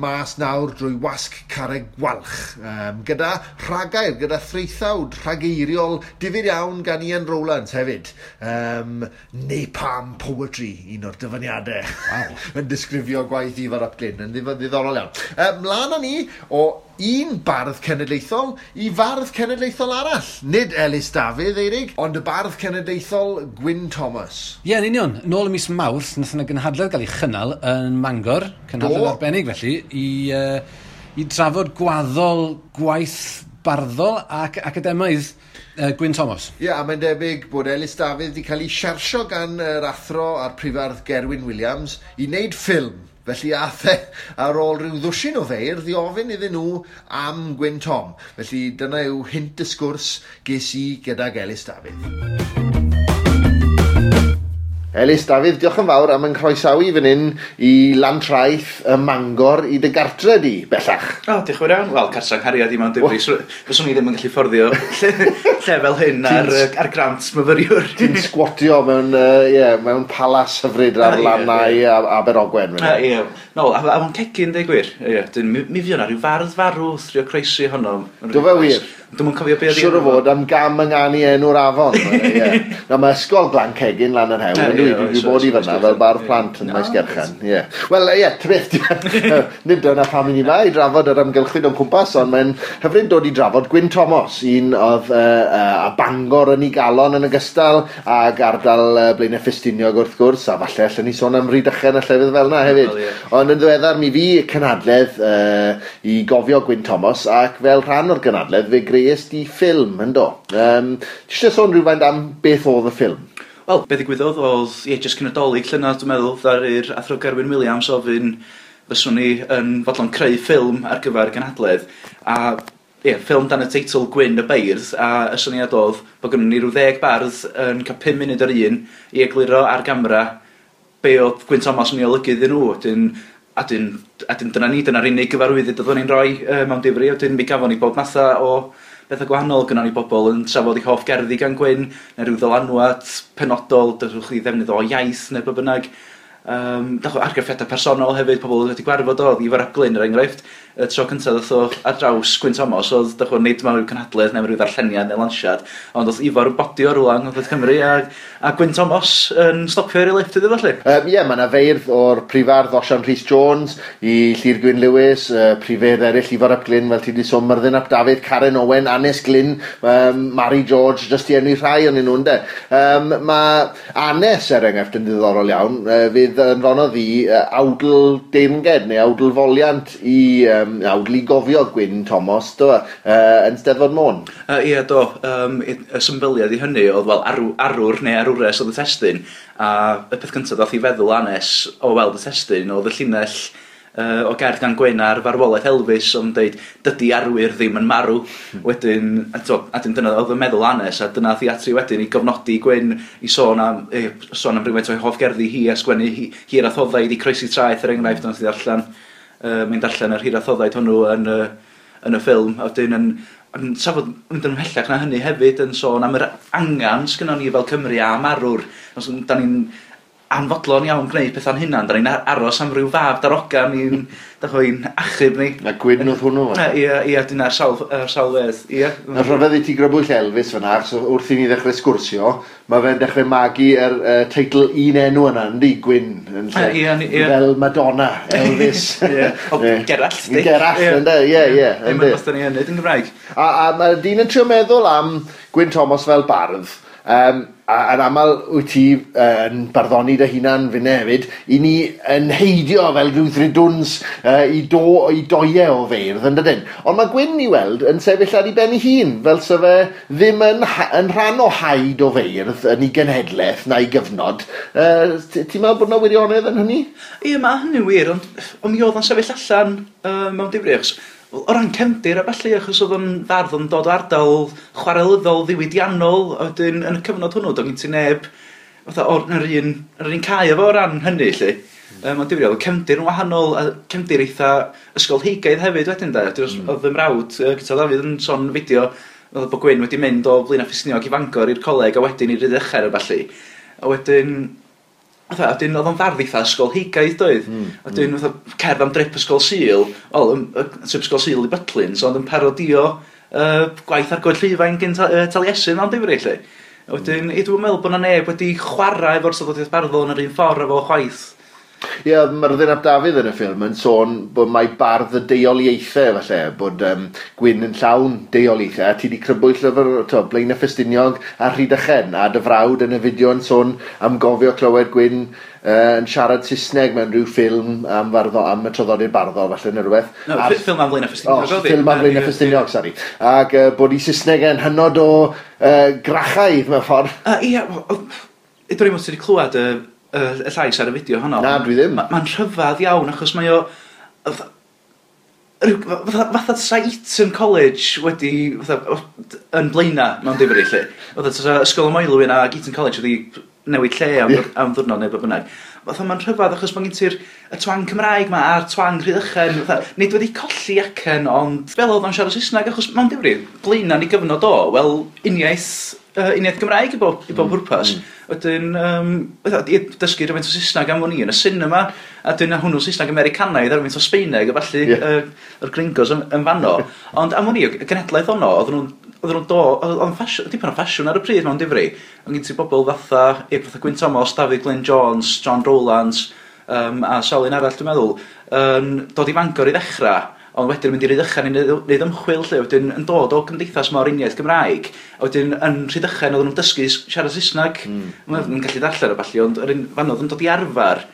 mas nawr drwy wasg Carreg Gwalch, gyda rhagair, gyda threithawd rhageiriol difyr iawn gan Ian Rowlands hefyd. Napalm Poetry, un o'r dyfyniadau. Wow. Yn disgrifio gwaith Ifor ap Glyn, yn ddiddorol iawn. Mlaen â ni o un bardd cenedlaethol i fardd cenedlaethol arall. Nid Elis Dafydd, Eirig, ond y bardd cenedlaethol Gwyn Thomas. Ie, yn union. Nôl ym mis Mawrth, nath yna gynhadledd gael ei chynnal yn Mangor, cynhadledd arbennig felly, i drafod gwaddol gwaith barddol ac academaidd Gwyn Thomas. Ie, yeah, a mae'n debyg bod Elis Dafydd wedi cael ei siarsio gan yr athro a'r prifardd Gerwyn Wiliams i wneud ffilm. Felly ath e ar ôl rhyw ddwsin o feirdd i ofyn iddyn nhw am Gwyn Tom. Felly dyna yw hint y sgwrs ges i gydag Elis Dafydd. Elis Dafydd, diolch yn fawr am yn croesawu fan hyn i Lantraeth y Mangor i dy gartre di, bellach. O, diolch yn fawr iawn. Wel, cartre nghariad i mewn difri. Fyswn i ddim yn gallu fforddio lle fel hyn ar grant myfyriwr. Ti'n sgwatio mewn, mewn palas hyfryd ar lannau Aberogwen. Ie. No, a fo'n cegin, deud gwir. Ie, mi fuo 'na rhyw fardd farw wrth drio croesi honno. Do fe wir? Dwi'm yn cofio be oedd Siŵr o fod am gam ynganu enw'r afon. Ie. Na, mae ysgol Glan Cegin lan yr hewl. Dwi wedi bod i fyna fel bardd plant yn Maesgeirchen. Ie. Wel, ie, ta beth, nid dyna pam i ni yma i drafod yr amgylchfyd o'n cwmpas, ond mae'n hyfryd dod i drafod Gwyn Thomas, un oedd a Bangor yn ei galon yn ogystal ag ardal Blaenau Ffestiniog wrth gwrs, a falle allan ni sôn am Rhydychen a llefydd fel yna hefyd. Well, yeah. Ond yn ddiweddar mi fu cynhadledd i gofio Gwyn Thomas, ac fel rhan o'r gynhadledd fe grees di ffilm, yndo. Ti eisiau sôn rhywfaint am beth oedd y ffilm? Wel, be ddigwyddodd oedd, ie, jyst cyn y Dolig llynedd, dwi'n meddwl, ddaru'r athro Gerwyn Wiliams ofyn fyswn ni yn fodlon creu ffilm ar gyfer y gynhadledd, a ie, ffilm dan y teitl Gwyn y Beirdd, a y syniad oedd bod gynnon ni rhyw 10 bardd yn cael 5 munud yr un i egluro ar gamera be oedd Gwyn Thomas yn ei olygu iddyn nhw. A dyn dyna ni, dyna'r unig gyfarwyddyd oeddwn ni'n rhoi mewn difri, a dyn mi gafon ni bob matha o bethau gwahanol. Gynnon ni bobl yn trafod eu hoff gerddi gan Gwyn, neu rhyw ddylanwad penodol, dydwch chi ddefnydd o iaith neu be bynnag. Argraffiadau personol hefyd, pobl wedi gwarfod o, Ifor ap Glyn er enghraifft, y tro cyntaf ddoth o ar draws Gwyn Thomas, oedd nid mewn rhyw cynhadledd neu rhyw ddarlleniad neu lansiad, ond oedd Ifor yn bodio rhywle yng Ngogledd Cymru a Gwyn Thomas yn stopio ar ei lifft iddo fo, lly. Ie, mae yna feirdd o'r prifardd Osian Rhys Jones i Llyr Gwyn Lewis, prifeirdd eraill Ifor ap Glyn, fel ti wedi sôn, Myrddin ap Dafydd, Karen Owen, Anes Glyn, Mari George, jyst i enwi rhai o'n nhw, ynde. Mae Anes, er enghraifft, yn ddiddorol iawn, fydd anfonodd i awdl deyrnged neu awdl foliant i awdl i gofio Gwyn Thomas, do, yn Steddfod Môn. Ie, do. Y symbyliad i hynny oedd, wel, arwr neu arwres oedd y testun, a y peth cyntaf ddath i feddwl Anes o weld y testun oedd y llinell o gerdd gan Gwyn ar farwolaeth Elvis, ond deud, dydy arwyr ddim yn marw. Wedyn, a dyna oedd y meddwl Anes, a dyna theatri wedyn i gofnodi Gwyn i sôn am rhywfaint o'i hoff gerddi hi a sgwennu hir a thoddaid i croesi traeth, er enghraifft, ond ddarllen, mae'n darllen yr hir a thoddaid hwnnw yn y ffilm. A wedyn yn trafod mynd yn ymhellach na hynny hefyd, yn sôn am yr angan sgynnon ni fel Cymru am arwr. Os da ni'n anfodlon iawn gwneud pethau'n hunan, da ni'n aros am ryw fab darogan i'n achub ni. Na Gwyn oedd hwnnw. Ie, dyna'r sawl wedd. Ie. Na rhyfedd i ti grybwyll Elvis fyna, achos wrth i ni ddechrau sgwrsio, mae fe'n dechrau magu yr teitl un enw yna, yndi, Gwyn, yn lle. Ie. Fel Madonna, Elvis. Ie. O, Gerallt, di. Gerallt, ynddo, ie. Ddim yn beth da ni yn neud yn Gymraeg. A mae dyn yn trio meddwl am Gwyn Thomas fel bardd. A yn aml wyt ti yn barddoni dy hunan finne hefyd, i ni yn heidio fel rhyw ddrudwns i doiau o feirdd, yn dydyn? Ond mae Gwyn i weld yn sefyll ar ei ben ei hun, fel sa fe ddim yn rhan o haid o feirdd yn ei genhedlaeth na'i gyfnod. Ti'n meddwl bod yna wirionedd yn hynny? Ie, mae hynny'n wir, ond mi oedd o'n sefyll allan mewn difri, achos o ran cefndir a ballu, achos oedd o'n fardd yn dod o ardal chwarelyddol ddiwydiannol, a wedyn yn y cyfnod hwnnw, doedd gen ti neb fatha o'r yr un cae efo o ran hynny, lly. Mae'n difri, oedd y cefndir yn wahanol, a cefndir eitha ysgolheigaidd hefyd wedyn, de. Oedd fy mrawd, Guto Dafydd, yn sôn fideo, oedd bod Gwyn wedi mynd o Blaenau Ffestiniog i Fangor i'r coleg, a wedyn i Rhydychen a ballu. A wedyn, oedd o'n fardd eitha ysgolheigaidd, doedd. Wedyn, fatha, cerdd am drip ysgol Sul, wel, trip ysgol Sul i Butlins, ond yn parodio gwaith Argoed Llifain gyn Taliesin mewn difri, lle. Wedyn, dwi'n meddwl bod 'na neb wedi chwarae efo'r traddodiad barddol yn yr un ffordd efo chwaith. Ie, yeah, Myrddin ap Dafydd yn y ffilm yn sôn bod mae bardd y deuoliaethau falle, bod Gwyn yn llawn deuoliaethau, a ti wedi crybwyll llyfr to, Blaenau Ffestiniog a Rhydychen, a dy frawd yn y fideo yn sôn am gofio clywed Gwyn yn siarad Saesneg mewn rhyw ffilm am, farddo, am y traddodiad barddol falle neu rhywbeth. No, ffilm am Blaenau Ffestiniog. Oh, ffilm am Blaenau Ffestiniog, sori. Ac bod i Saesneg yn hynod o grachaidd mewn ffordd. Ie, dwi'n meddwl ti wedi clywed y llais ar y fideo honno. Na, dwi ddim. Mae'n rhyfedd iawn, achos mae o... Fatha tasa Eton College wedi... Fatha, yn Blaena mewn difri, lle. Fatha tasa Ysgol y Moelwyn ac Eton College wedi newid lle am, yeah, am ddwrnod neu be bynnag. Fatha mae'n rhyfedd achos mae'n gen ti'r y twang Cymraeg ma a'r twang Rhydychen. Fatha, nid wedi colli acen, ond fel oedd o'n siarad Saesneg, achos mewn difri, Blaena ni gyfnod o, wel, uniaith Gymraeg i bob pwrpas. Wedyn, dysgu rhywfaint o Saesneg am wn i yn y cinema, a dyna hwnnw Saesneg Americanaidd a rhywfaint o Sbaeneg, a falle yr gringos yn fanno. Ond am wn i, y genhedlaeth honno, oedden nhw'n oedd yn dipyn o ffasiwn ar y pryd mewn difri. Ond gen ti bobl fatha Gwyn Thomas, David Glyn Jones, John Rowlands, a sawl un arall dwi'n meddwl, dod i Fangor i ddechrau, ond wedyn mynd i Rhydychen i wneud ymchwil lle, wedyn yn dod o gymdeithas mor uniaith Gymraeg, a wedyn yn Rhydychen oedden nhw'n dysgu siarad Saesneg, mm. Yn gallu darllen o ballu, ond yr un fan oedd yn dod i arfer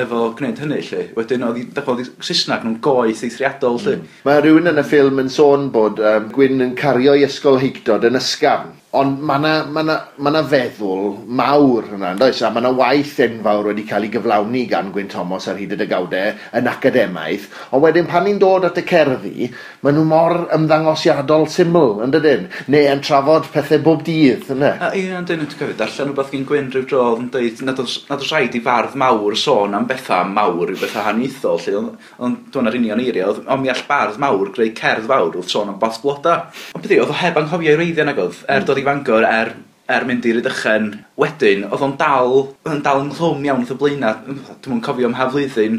efo gwneud hynny lle. Wedyn oedd Saesneg nhw'n goeth eithriadol lle. Mae rhywun yn y ffilm yn sôn bod Gwyn yn cario ei ysgolheictod yn ysgafn. Ond mae 'na feddwl mawr yna, yndoes? A mae 'na waith enfawr wedi cael ei gyflawni gan Gwyn Thomas ar hyd y degawdau yn academaidd. Ond wedyn pan ni'n dod at y cerddi, maen nhw mor ymddangosiadol syml, yn dydyn? Neu yn trafod pethau bob dydd, yna? Ie, yn dyn, dwi'n cofio darllen rhywbeth gen Gwyn rhyw dro oedd yn dweud nad oes rhaid i fardd mawr sôn am bethau mawr i'w bethau haniaethol, lle, ond dwi'n ar union eiriau, ond mi all bardd mawr greu cerdd fawr wrth sôn am both bloda. Ond beth oedd o heb anghofio ei wreiddiau nag oedd, dod i Fangor, er mynd i Rhydychen wedyn, oedd o'n dal ynghlwm iawn wrth y Blaenau. Dwi'm yn cofio ym mha flwyddyn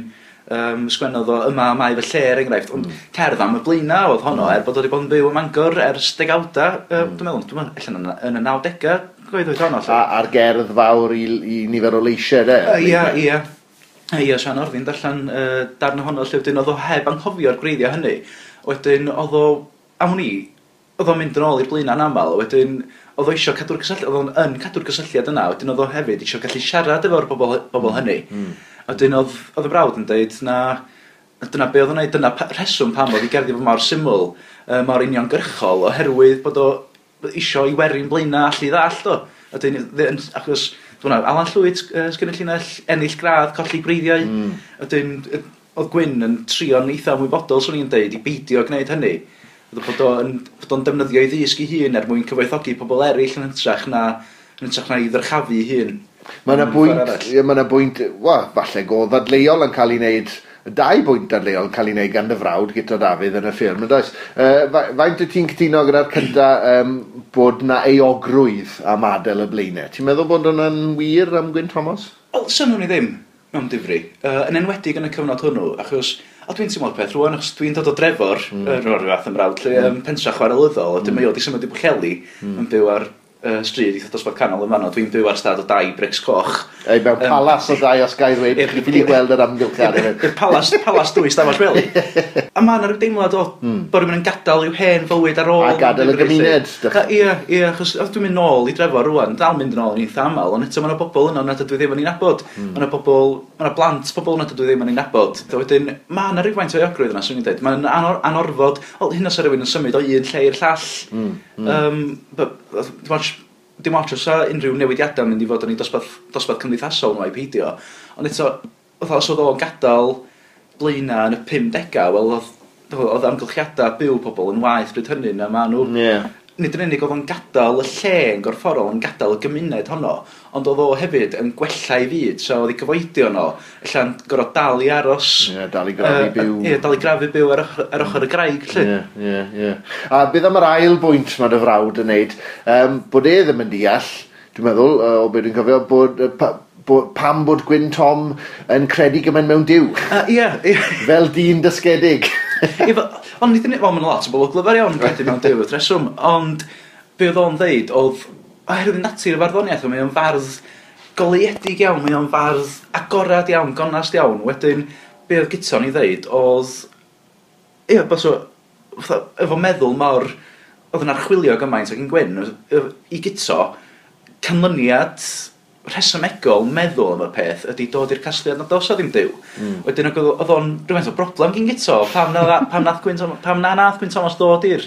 sgwennodd o yma mae fy lle, er enghraifft, ond cerdd am y Blaenau oedd honno, er bod o wedi bod yn byw ym Mangor ers degawda, dwi'n meddwl, allan yn y 90au, gweithio honno. A'r gerdd fawr i nifer o leisiau, de? Ie. Ie, Sian Orddin darllen darn ohono lle wedyn oedd o heb anghofio'r gwreiddiau hynny. Wedyn oedd o, am wn i, oedd o'n mynd yn ôl i'r Blaenau'n aml, wedyn oedd o eisiau cadw'r cysylltiad, oedd o'n yn cadw'r cysylltiad yna, wedyn oedd o hefyd eisiau gallu siarad efo'r bobl hynny. Wedyn oedd y brawd yn dweud na, dyna be oedd o'n neud, dyna rheswm pam oedd i gerddi fo mor syml, mor uniongyrchol, oherwydd bod o eisiau i werin Blaenau allu ddallt o. Wedyn, achos, dwi'n meddwl, Alan Llwyd, sgynnu llinell, ennill gradd, colli gwreiddiau. Wedyn, oedd Gwyn yn trio'n eitha ymwybodol, swn i'n deud, i beidio gwneud hynny. Bod o'n defnyddio ei ddysg ei hun er mwyn cyfoethogi pobl eraill yn hytrach na i ddyrchafu ei hun. Mae yna bwynt, wel, falle go ddadleuol yn cael ei wneud, dau bwynt dadleuol yn cael ei wneud gan dy frawd Guto Dafydd yn y ffilm, yn does? Faint wyt ti'n cytuno gyda'r cynta bod na euogrwydd am adael y Blaenau? Ti'n meddwl bod hwnna'n wir am Gwyn Thomas? Wel, synnwn i ddim mewn difri, yn enwedig yn y cyfnod hwnnw, achos a dwi'n teimlo'r peth rwan, achos dwi'n dod o Drefor, rhyw fath ymrawd, lle pentra chwarelyddol, a dyma i wedi symud i Bwllheli, yn byw ar stryd eitha dosbarth canol yn fanno, dwi'n byw ar stad o dai brics coch. Ei, mewn palas o dai, os gai ddweud, chi'n ffili gweld yr amgylchiad. I'r palas dwy stafell wely. A mae yna rhyw deimlad o bod rhywun yn gadael i'w hen fywyd ar ôl. A gadael y gymuned. Ie, achos dwi'n mynd nôl i Drefor rwan, dal mynd yn ôl yn eitha aml, ond eto mae yna bobl yno nad ydw i ddim yn ei nabod. Mae yna bobl, mae yna blant pobl nad ydw i ddim yn ei nabod. Wedyn, mae yna rhywfaint o euogrwydd yna, swn i'n dweud. Mae'n anorfod, wel, hyn os rhywun yn symud o un lle i'r llall. Dim ots os unrhyw newidiadau mynd i fod yn ei dosbarth cymdeithasol nhw a'i peidio. Ond eto, os oedd o'n gadael Blaenau yn y 50au, wel, oedd amgylchiadau byw pobl yn waeth bryd hynny na maen nhw. Yeah. Nid yn unig oedd o'n gadael y lle yn gorfforol, yn gadael y gymuned honno, ond oedd o hefyd yn gwella ei fyd, so oedd ei cyfoedion o, ella'n gorfod dal i aros. Ie, dal i grafu byw. Ie, dal i grafu byw ar ochr y graig, lle. Ie. A beth am yr ail bwynt mae dy frawd yn neud, bod e ddim yn deall, dwi'n meddwl, o beth dwi'n cofio, bod pam bod Gwyn Tom yn credu gymaint mewn Duw. Ie. Fel dyn dysgedig. Ond nid yn wel, mae'n lot o bobl glyfar iawn yn credu mewn Duw wrth reswm, ond be oedd o'n ddeud oedd, oherwydd natur y farddoniaeth, mae o'n fardd goleuedig iawn, mae o'n fardd agorad iawn, gonast iawn. Wedyn, be oedd Guto'n ei ddeud oedd, ie, fatha, efo meddwl mor, oedd yn archwilio gymaint ac yn Gwyn, i Guto, canlyniad rhesymegol meddwl am y peth ydy dod i'r casgliad nad oes o ddim Duw. Wedyn oedd o'n rhywfaint o broblem gyn Guto, pam na nath Gwyn Thomas ddod i'r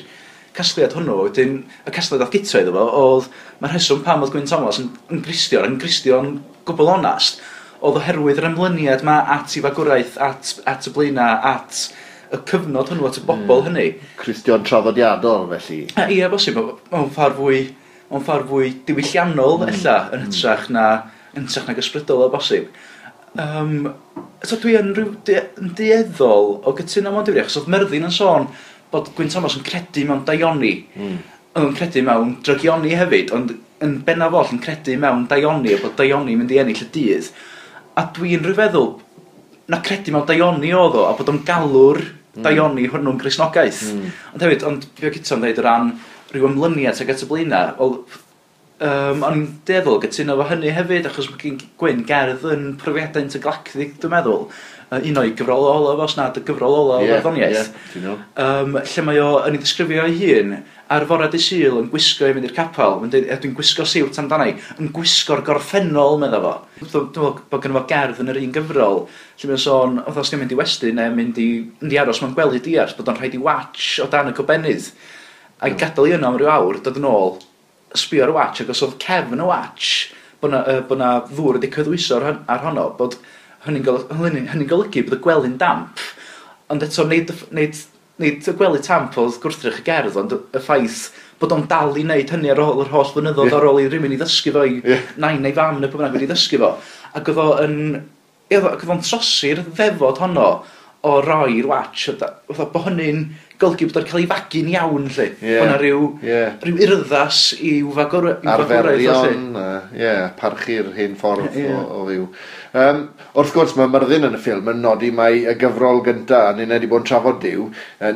casgliad hwnnw. Wedyn y casgliad oedd Guto iddo fo oedd mae'r rheswm pam oedd Gwyn Thomas yn Gristion gwbl onast oedd oherwydd yr ymlyniad ma at ei fagwraeth, at y Blaenau, at y cyfnod hwnnw, at y bobl hynny. Cristion traddodiadol felly. Ie, bosib, mewn ffordd fwy diwylliannol ella yn hytrach nag ysbrydol o bosib. So dwi yn dueddol o gytuno mewn difri, achos oedd Myrddin yn sôn bod Gwyn Thomas yn credu mewn daioni. Oedd yn credu mewn drygioni hefyd, ond yn bennaf oll yn credu mewn daioni, a bod daioni mynd i ennill y dydd. A dwi'n rhyfeddol na credu mewn daioni oedd o, a bod o'n galw'r daioni hwnnw'n Gristnogaeth. Ond hefyd, ond fi o Guto'n dweud o ran rhyw ymlyniad ag at y Blaenau, wel, o'n i'n dueddol gytuno efo hynny hefyd, achos mae gen Gwyn gerdd yn profiadau intergalactic, dwi'n meddwl. Un o'i gyfrol olaf, os nad y gyfrol olaf o farddoniaeth. Lle mae o yn ei ddisgrifio ei hun ar fore dydd Sul yn gwisgo i fynd i'r capel. Mae'n dweud, dwi'n gwisgo siwt amdana i, yn gwisgo'r gorffennol, medda fo. Dwi'n meddwl bod gynno fo gerdd yn yr un gyfrol, lle mae'n sôn, os ti'n mynd i westy neu mynd i aros mewn gwely diarth, bod o'n rhaid i watch o dan y gobennydd. A gadael i yno am ryw awr, dod yn ôl, sbio ar y watch, ac os oedd cefn y watch, bod na ddŵr wedi cyddwyso ar honno, bod hynny'n golygu bod y gwely'n damp. Ond eto, nid y gwely tamp oedd gwrthrych y gerdd, ond y ffaith bod o'n dal i wneud hynny ar ôl yr holl flynyddoedd, ar ôl i rywun i ddysgu fo, i nain neu fam neu pwy bynnag wedi ddysgu fo. Ac oedd o'n trosi'r ddefod honno o roi'r watch, bod hynny'n golygu bod o'n cael ei fagu'n iawn, lle. Bod yna rhyw urddas i'w fagwraeth. Arferion, parchu'r hen ffordd o fyw. Wrth gwrs, mae Myrddin yn y ffilm yn nodi mai y gyfrol gynta, a ni'n wedi bod yn trafod Duw,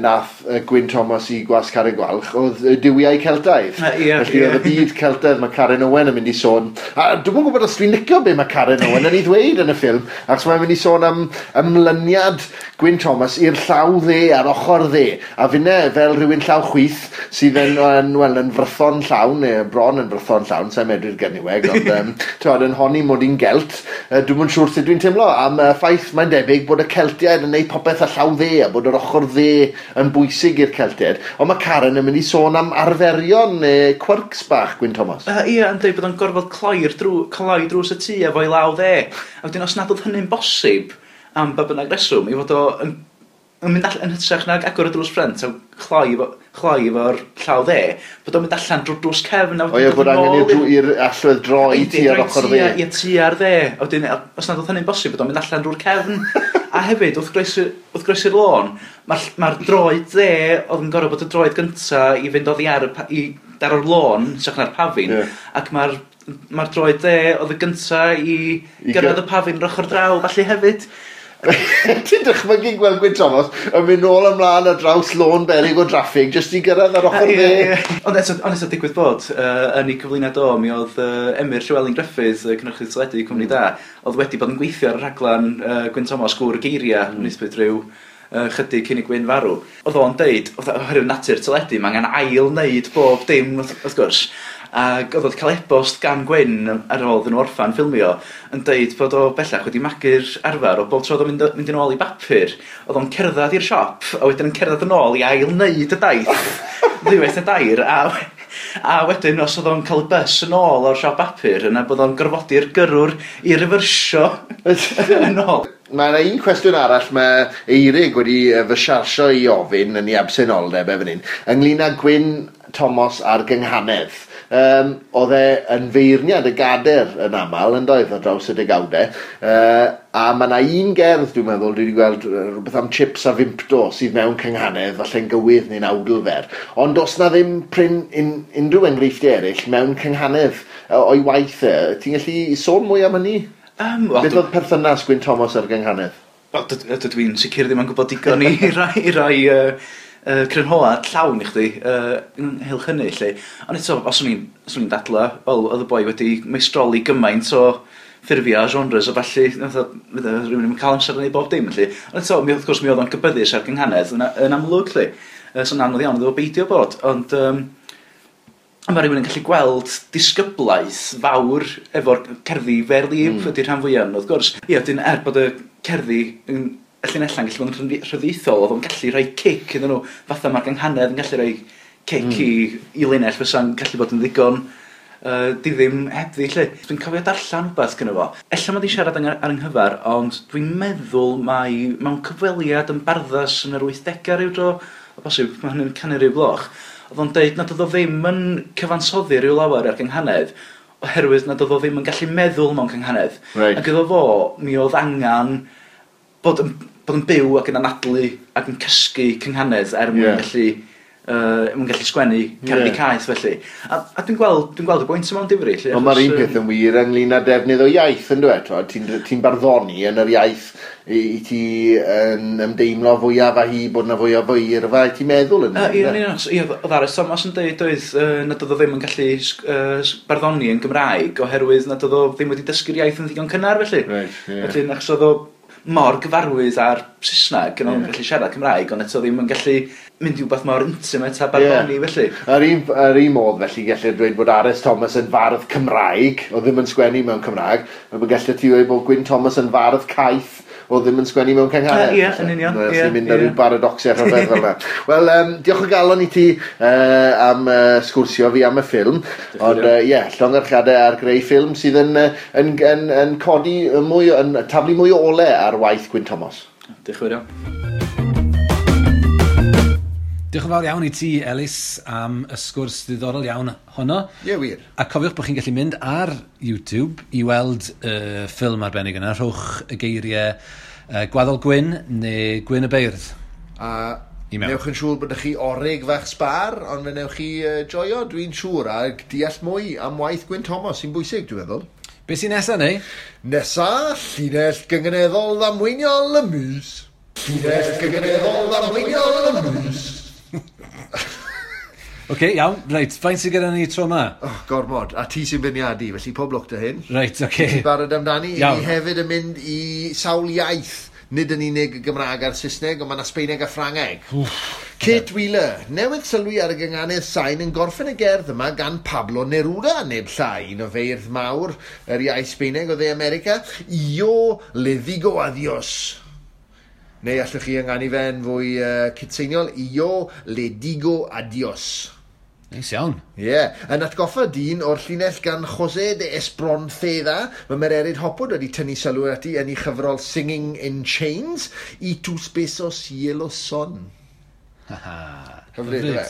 nath Gwyn Thomas i Gwasg Carreg Gwalch, oedd Duwiau Celtaidd. Felly oedd y byd Celtaidd, mae Karen Owen yn mynd i sôn, a dwi'm yn gwybod os dwi'n licio be mae Karen Owen yn ei ddweud yn y ffilm, achos mae'n mynd i sôn am ymlyniad Gwyn Thomas i'r llaw dde a'r ochr dde. A finne, fel rhywun llaw chwith, sydd yn frython llawn, neu bron yn frython llawn, sa'n medru'r Gernyweg, ond yn honni mod i'n Gelt, dwi'm yn siŵr sut dwi'n teimlo am y ffaith mae'n debyg bod y Celtiaid yn neud popeth â llaw dde, a bod yr ochr dde yn bwysig i'r Celtiaid. Ond mae Karen yn mynd i sôn am arferion neu quirks bach Gwyn Thomas. Ie, yn dweud bod o'n gorfod cloi drws y tŷ efo'i law dde. A wedyn os nad oedd hynny'n bosib am ba bynnag reswm, i fod o yn mynd allan yn hytrach nag agor y drws ffrynt a chloi efo'r llaw dde, bod o'n mynd allan drwy'r drws cefn. O ie, bod angen i'r allwedd droi tua'r ochr dde. Ie, tua'r dde. A wedyn, os nad oedd hynny'n bosib, bod o'n mynd allan drwy'r cefn. A hefyd, wrth groesi'r lôn, mae'r droed dde oedd yn gorfod bod y droed gynta i fynd oddi ar daro'r lôn, hytrach na'r pafin, ac mae'r droed dde oedd y gynta i gyrraedd y pafin yr ochr draw, felly hefyd. Ti'n dychmygu gweld Gwyn Thomas yn mynd nôl ymlaen ar draws lôn beryg o draffig jyst i gyrraedd ar ochr dde. Ond eto digwydd bod, yn ei cyflwyniad o, mi oedd Emyr Llywelyn Gruffydd, cynhyrchydd teledu Cwmni Da, oedd wedi bod yn gweithio ar y rhaglen Gwyn Thomas Gŵr Geiriau, wnaethpwyd rhyw chydig cyn i Gwyn farw. Oedd o'n deud, oherwydd natur teledu, mae angen ail wneud bob dim, wrth gwrs. Ac oedd o'n cael e-bost gan Gwyn ar ôl iddyn nhw orffan ffilmio yn deud bod o bellach wedi magu'r arfer o bob tro oedd o'n mynd yn ôl i bapur, oedd o'n cerdded i'r siop a wedyn yn cerdded yn ôl i ail wneud y daith ddiwedd y dair, a wedyn os oedd o'n cael y bus yn ôl o'r siop bapur yna bod o'n gorfodi'r gyrrwr i refersio yn ôl. Mae yna un cwestiwn arall mae Eirig wedi fy siarsio i ofyn yn ei absenoldeb efo hyn, ynglyn â Gwyn Thomas a'r gynghanedd. Oedd e yn feirniad y gader yn aml, yn doedd, ar draws y degawdau. A mae yna un gerdd, dwi'n meddwl, dwi wedi gweld rhywbeth am chips a fimpto sydd mewn cynghanedd, falle'n gywydd neu'n awdl fer. Ond does na ddim prin unrhyw enghreifftiau eraill mewn cynghanedd o'i waith e. Ti'n gallu sôn mwy am hynny? Beth oedd perthynas Gwyn Thomas a'r gynghanedd? Wel, dydw i'n sicr ddim yn gwybod digon i rai crynhoad llawn i chdi ynghylch hynny, lle. Ond eto, os o'n i'n dadla, wel, oedd y boi wedi meistroli gymaint o ffurfiau a genres a falle, fydde rhywun yn cael amser yn ei bob dim, felly. Ond eto, mi, wrth gwrs, mi oedd o'n gybyddus ar gynghanedd yn amlwg, lle. So anodd iawn iddo fo beidio bod, ond mae rhywun yn gallu gweld disgyblaeth fawr efo'r cerddi vers libre ydy'r rhan fwyaf, wrth gwrs. Ie, dyn bod y cerddi yn y llinelau'n gallu bod yn rhyddieithol, oedd o'n gallu rhoi cic iddyn nhw, fatha mae'r gynghanedd yn gallu rhoi cic i linell fysa'n gallu bod yn ddigon diddim hebddi, lle. Dwi'n cofio darllen rhywbeth gyda fo. Ella mod i siarad ar ynghyfer, ond dwi'n meddwl mai mewn cyfweliad yn Barddas yn yr 80au rhyw dro, o bosib, mae hynny'n canu rhyw gloch, oedd o'n deud nad oedd o ddim yn cyfansoddi rhyw lawer ar gynghanedd, oherwydd nad oedd o ddim yn gallu meddwl mewn cynghanedd. Ac iddo fo, mi oedd angen bod yn byw ac yn anadlu ac yn cysgu cynghanedd er mwyn gallu sgwennu cerddi caeth felly. A dwi'n gweld y bwynt yma o'n difri. Lle, Ond mae'r achos, un peth yn wir ynglyn â defnydd o iaith, yn dweud? Ti'n barddoni yn yr iaith i ti yn ymdeimlo fwyaf â hi, bod na fwyaf o eirfa i ti'n meddwl yn. Ie, yn union. Ie, oedd R.S. Thomas yn dweud oedd nad oedd o ddim yn gallu barddoni yn Gymraeg oherwydd nad oedd o ddim wedi dysgu'r iaith yn ddigon cynnar felly. Reit, ie. Felly, achos oedd o mor gyfarwydd ar Saesneg, yn o'n gallu siarad Cymraeg, ond eto ddim yn gallu mynd i wbeth mor intimate a barddoni felly. Ar un modd felly gellir dweud bod R.S. Thomas yn fardd Cymraeg, o ddim yn sgwennu mewn Cymraeg, a bod gellir ti dweud bod Gwyn Thomas yn fardd caeth, o ddim yn sgwennu mewn cynghanedd. Ie, yn union, Ie, ie, mynd ar ryw paradoxiau rhyfedd fel yna. Wel, diolch o galon i ti am sgwrsio fi am y ffilm. Ond, ie, llongyfarchiadau ar greu ffilm sydd yn codi mwy, yn taflu mwy o ole ar waith Gwyn Thomas. Diolch yn fawr iawn. Diolch yn fawr iawn i ti, Elis, am y sgwrs ddiddorol iawn honno. Ie, wir. A cofiwch bod chi'n gallu mynd ar YouTube i weld y ffilm arbennig yna. Rhowch y geiriau Gwaddol Gwyn neu Gwyn y Beirdd. A I mewn. newch yn siŵr bod chi orig fach sbar, ond fe newch chi joio, dwi'n siŵr, a deall mwy am waith Gwyn Thomas sy'n bwysig, dwi'n meddwl. Be sy'n nesaf, neu? Nesa, llinell gynganeddol ddamweiniol y mis. Llinell gynganeddol ddamweiniol y mis. Oce, okay, iawn. Reit, faint sydd gyda ni tro yma? Oh, gormod. A ti sy'n beirniadu, felly pob lwc 'da hyn. Reit, oce. Okay. Barod amdani? Iawn. Ni hefyd yn mynd i sawl iaith. Nid yn unig y Gymraeg a'r Saesneg, ond mae yna Sbeineg a Ffrangeg. Kate Wheeler, newydd sylwi ar y gynganedd sain yn gorffen y gerdd yma gan Pablo Neruda, neb llai, un o feirdd mawr yr iaith Sbeineg o dde America. Yo le digo adiós. Neu allwch chi ynganu fe'n fwy cytseiniol. Yo le digo adiós. Neis iawn. Ie, yeah. Yn atgoffa dyn o'r llinell gan José de Espronceda, mae Mererid Hopwood wedi tynnu sylw ati yn ei chyfrol Singing in Chains, Y tus besos hielo son. Hyfryd, yfe?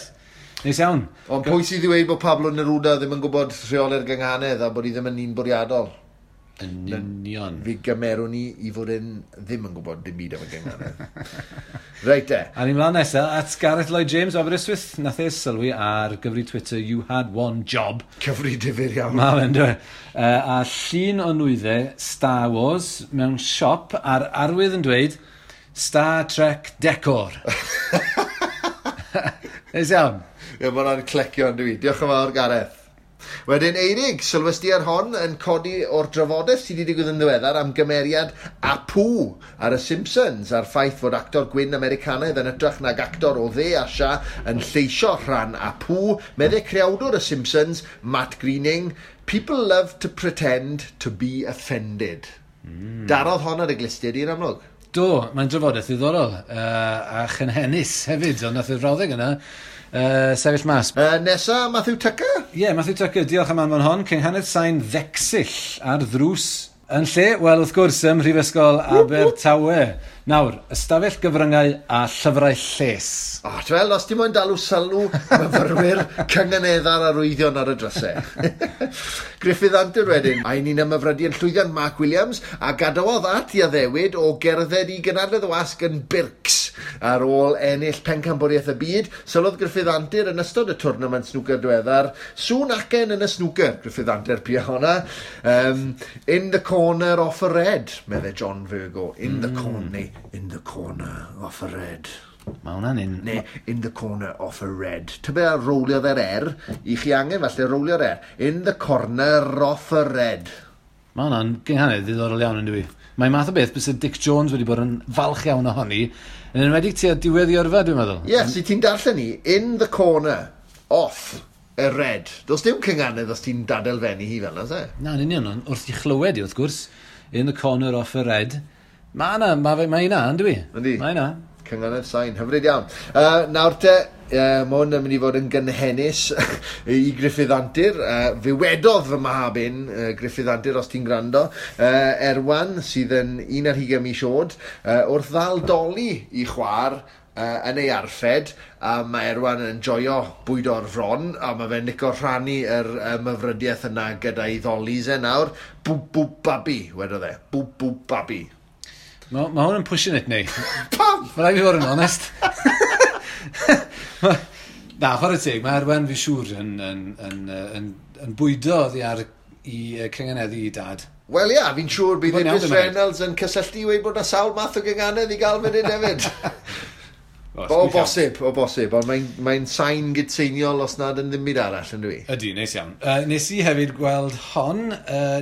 Neis iawn. Ond pwy sydd i ddweud bod Pablo Neruda ddim yn gwybod rheoli'r gynghanedd a bod hi ddim yn un bwriadol? Yn union. Fi gymerwn ni i fod yn ddim yn gwybod dim byd am y gynghanedd. Reit de. A ni'n mlaen nesaf at Gareth Lloyd James o Aberystwyth. Nath e sylwi ar gyfri Twitter, "You had one job." Cyfri difyr iawn. Ma fe'n dweud. A llun o nwyddau Star Wars mewn siop a'r arwydd yn dweud "Star Trek Decor". Neis iawn. Ie, mae hwnna'n clecio yn dwi. Diolch yn fawr, Gareth. Wedyn, Eirig, sylwes di ar hon yn codi o'r drafodaeth sydd wedi digwydd yn ddiweddar am gymeriad Apu ar y Simpsons, a'r ffaith fod actor gwyn Americanaidd yn hytrach nag actor o dde Asia yn lleisio rhan Apu, meddai creawdwr y Simpsons, Matt Groening, "People love to pretend to be offended." Darodd hon ar y glustiau di'n amlwg. Do, mae'n drafodaeth ddiddorol a chynhennus hefyd, ond nath y frawddeg yna sefyll mas. Nesa, Matthew Tucker? Ie, yeah, Matthew Tucker, diolch am anfon hon. Cynghanedd sain ddecsill ar ddrws. Yn lle? Wel, wrth gwrs, ym Mhrifysgol Abertawe. Nawr, ystafell gyfryngau a llyfrau lles. O, oh, wel, os ti'n moyn dalw sylw myfyrwyr cynganeddar arwyddion ar y drysau. Griffith Antur wedyn, a ni'n ymhyfrydu yn llwyddiant Mark Williams, a gadawodd at i addewid o gerdded i gynadledd y wasg yn Birks ar ôl ennill pencampwriaeth y byd. Sylwodd Griffith Antur yn ystod y twrnament snwcer diweddar. Sŵn acen yn y snwcer, Griffith Antur pia honna. "In the corner off a red," meddai John Virgo. In the corner, neu "in the corner off a red." Mae hwnna'n un. Neu "in the corner of a red". Tybe a rowliodd yr R, i chi angen falle rowlio'r R. "In the corner of a red." Mae hwnna'n gynghanedd ddiddorol iawn yn dwi. Mae'n math o beth byse Dic Jones wedi bod yn falch iawn ohoni, yn enwedig tua diwedd i yrfa, dwi'n meddwl. Ie, yes, si ti'n darllen ni, in the corner, off, y red. Does dim cynganedd os ti'n dadelfennu hi fel yna, se? Na, yn union, ond wrth i chlywed i, wrth gwrs, in the corner off y red, mae yna, mae ma yna, yn dwi? Yndi. Mae yna. Cynganedd sain, hyfryd iawn. Nawr te, mae hwn yn mynd i fod yn gynhennus i Gruffydd Antur. Fe wedodd fy mab un, Gruffydd Antur, os ti'n gwrando, Erwan, sydd yn 21 mis oed, wrth ddal doli i chwar yn ei arffed, a mae Erwan yn joio bwyd o'r fron, a mae fe'n licio rhannu yr myfrydiaeth yna gyda'i ddolis e nawr. Bwb, bwb, babi, wedodd e. Bwb, bwb, babi. Mae ma hwn yn pushing it, neu. Pam? Mae rhaid fi fod yn onest. Na, chwarae teg, mae Erwan fi siŵr yn bwydo oddi ar i cynganeddu i dad. Wel ia, fi'n siŵr bydd Mae'n iawn, Idris dwi'n meddwl. Reynolds yn cysylltu i weud bod 'na sawl math o gynganedd i gael fan hyn hefyd. O, O bosib, o bosib, ond mae'n mae sain gydseiniol os nad yn ddim byd arall, yn dwi. Ydy, neis iawn. Nes i hefyd gweld hon,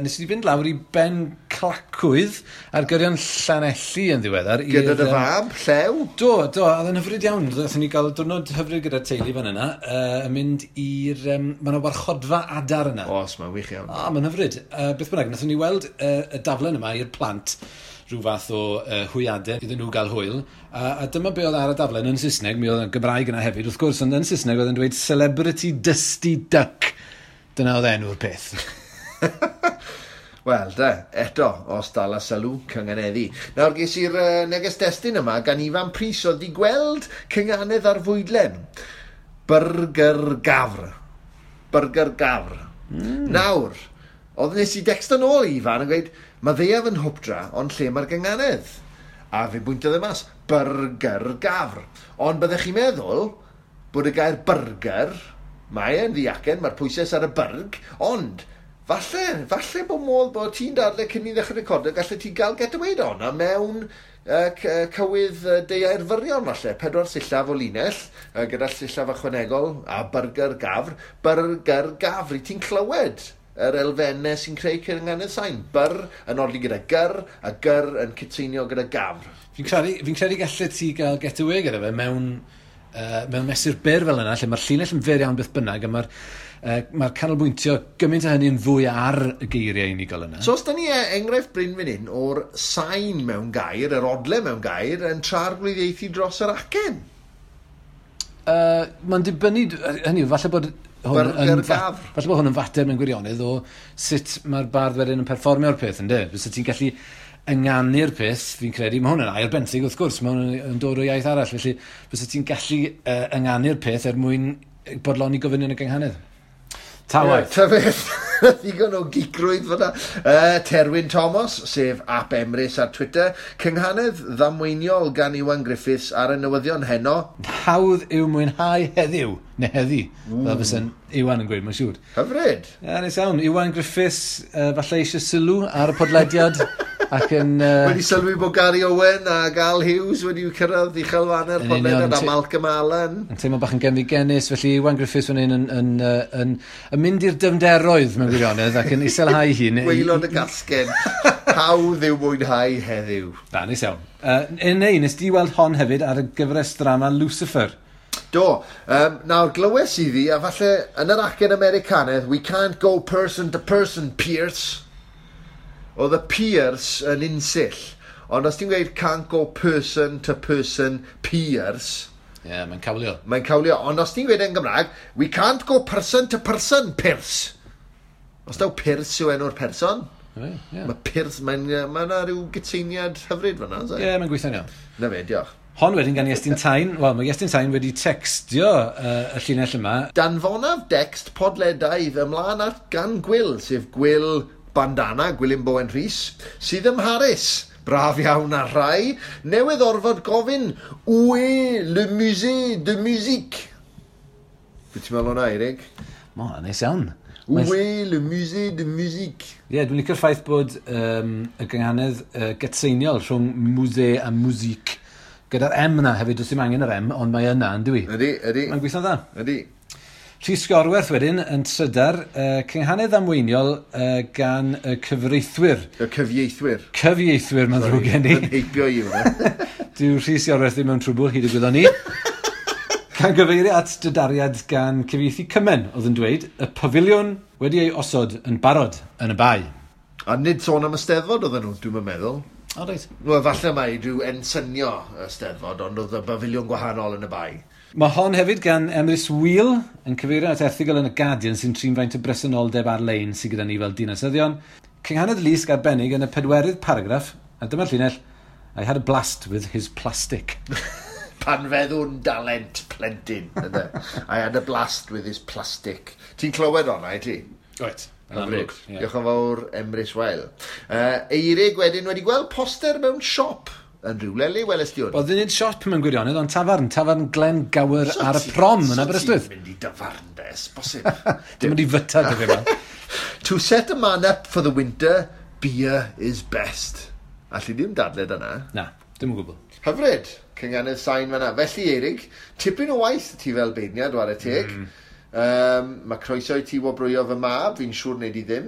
nes i fynd lawr i Ben Clacwydd ar gyrion Llanelli yn ddiweddar. Gyda dy i'r, fab, Llew? Do, do, a oedd yn hyfryd iawn. Nathon ni gael diwrnod hyfryd gyda'r teulu fan yna, yn mynd i'r... Mae yna warchodfa adar yna. Os, mae'n wych iawn. O, mae'n hyfryd. Beth bynnag, nathon ni weld y daflen yma i'r plant rhyw fath o hwyadau iddyn nhw gael hwyl. A dyma be oedd ar y daflen yn Saesneg, mi oedd yn Gymraeg yna hefyd, wrth gwrs, ond yn Saesneg oedd yn dweud Celebrity Dusty Duck. Dyna oedd enw'r peth. Wel, de, eto, os dal a sylw, cynganeddu. Nawr, ges i'r neges destun yma gan Ifan Prys oedd di gweld cynganedd ar fwydlen. Burger gafr. Burger gafr. Nawr, oedd nes i decsto nôl i Ifan yn gweud, mae ddaeaf yn hwpdra, ond lle mae'r gynganedd? A fe bwyntodd e mas, burger gafr. Ond byddech chi'n meddwl bod y gair burger, mae e'n ddiacen, mae'r pwysau ar y byrg, ond falle bod modd bod ti'n dadle cyn i ddechrau recordio, gallu ti gael get away o'na mewn cywydd deuair fyrion falle, 4 sillaf o linell, gyda sillaf ychwanegol a burger gafr, burger gafr, i ti'n clywed yr elfennau sy'n creu cynganedd sain. Byr yn odli gyda gyr, a gyr yn cytseinio gyda gafr. Fi'n credu gallet ti gael get away gyda fe mewn mesur byr fel yna, lle mae'r llinell yn fyr iawn beth bynnag, a mae'r canolbwyntio gymaint o hynny yn fwy ar y geiriau unigol yna. So os da ni enghraifft Bryn fan hyn o'r sain mewn gair, yr odle mewn gair, yn trarglwyddiaethu dros yr acen. Mae'n dibynnu, hynny yw, falle bod hwn Burger yn gafr. falle bod hwn yn fater mewn gwirionedd o sut mae'r bardd wedyn yn perfformio'r peth, yndê? Fysa ti'n gallu ynganu'r peth, fi'n credu, mae hwn yn air benthyg wrth gwrs, mae hwn yn dod o iaith arall, felly fysa ti'n gallu ynganu'r peth er mwyn bodloni gofynion y gynghanedd. Ta waeth. Ta beth, ddigon o gicrwydd fyna. Terwyn Thomas, sef Ap Emrys ar Twitter, cynghanedd ddamweiniol gan Iwan Griffiths ar y newyddion heno. Hawdd yw mwynhau heddiw, neu heddi, fel fysa'n Iwan yn gweud, mae'n siŵr. Hyfryd. Ie, neis iawn. Iwan Griffiths, falle eisiau sylw ar y podlediad ac yn... Wedi sylwi bod Gary Owen a Al Hughes wedi cyrraedd uchelfannau'r Yn union, podlediad a Malcolm Allen. Yn teimlo bach yn genfigennus, felly Iwan Griffiths fan hyn yn mynd i'r dyfnderoedd mewn gwirionedd ac yn iselhau hun. Gwaelod y gasgen. Hawdd yw mwynhau heddiw. Na, neis iawn. Neu, nes di weld hon hefyd ar y gyfres drama Lucifer. Do. Nawr, glywes i ddi, a falle yn yr acen Americanaidd, we can't go person to person, Pierce. Oedd y Pierce yn unsill. Ond os ti'n gweud can't go person to person, Pierce... Ie, yeah, mae'n cawlio. Mae'n cawlio. Ond os ti'n gweud yn Gymraeg, we can't go person to person, Pierce. Os daw Pierce yw enw'r person, Ie, ie. mae Pierce, mae'n ma yna rhyw gytseiniad hyfryd fan'na, oes e? Ie, mae'n gweithio'n iawn. Na fe, diolch. Hon wedyn gan Iestyn Tyne. Wel, mae Iestyn Tyne wedi textio y llinell yma. Danfonaf dext podledaidd ymlaen at gan Gwil, sef Gwil Bandana, Gwilym Bowen Rhys, sydd ym Mharis. Braf iawn ar rai. Newydd orfod gofyn, Où est le musée de musique? Be ti'n meddwl o'na, Eirig? Mo, neis iawn. Où est le musée de musique? Ie, dwi'n licio'r ffaith bod y gynghanedd gytseiniol rhwng musée a musique. Gyda'r M yna hefyd, does dim angen yr M, ond mae yna, yn dwi? Ydy, ydy. Mae'n gweithio'n dda. Ydy. Rhys Gorwerth wedyn yn trydar, cynghanedd amweiniol gan y cyfreithwyr. Y cyfieithwyr. Cyfieithwyr, mae'n ddrwg gen i. Yn heibio i hwnna. Dyw Rhys Iorwerth ddim mewn trwbl hyd y gwyddon ni. Gan gyfeirio at dydariad gan cyfieithu Cymen, oedd yn dweud, y pafiliwn wedi ei osod yn barod yn y bae. A nid sôn am y Steddfod oedden nhw, dwi'n meddwl. O, reit. Wel, falle mai rhyw ensynio y Steddfod, ond oedd y bafiliwn gwahanol yn y bae. Mae hon hefyd gan Emrys Wheel yn cyfeirio at erthygl yn y Guardian sy'n trin faint o bresenoldeb ar-lein sydd gyda ni fel dinasyddion. Cynghanedd Lusg arbennig yn y pedwerydd paragraff, a dyma'r llinell, I had a blast with his plastic. Pan feddwn dalent plentyn. Ynde? I had a blast with his plastic. Ti'n clywed honna, i ti? Right. Hyfryd. Diolch yn fawr, Emrys Weil. Eirig wedyn wedi gweld poster mewn siop yn rhywle le weles di hwn? Wel, ddim nid siop mewn gwirionedd, ond tafarn. Tafarn Glen Gower ar y prom yn Aberystwyth. So ti'n mynd i dafarn de, bosib. Dim mynd i fyta dy fi yma. To set a man up for the winter, beer is best. Alli ddim dadled yna. Na, dim o gwbl. Hyfryd, cynghanedd sain fan'na. Felly, Eirig, tipyn o waith ti fel beirniad, ware teg. Mae croeso i ti wobrwyo fy mab, fi'n siŵr wneud i ddim.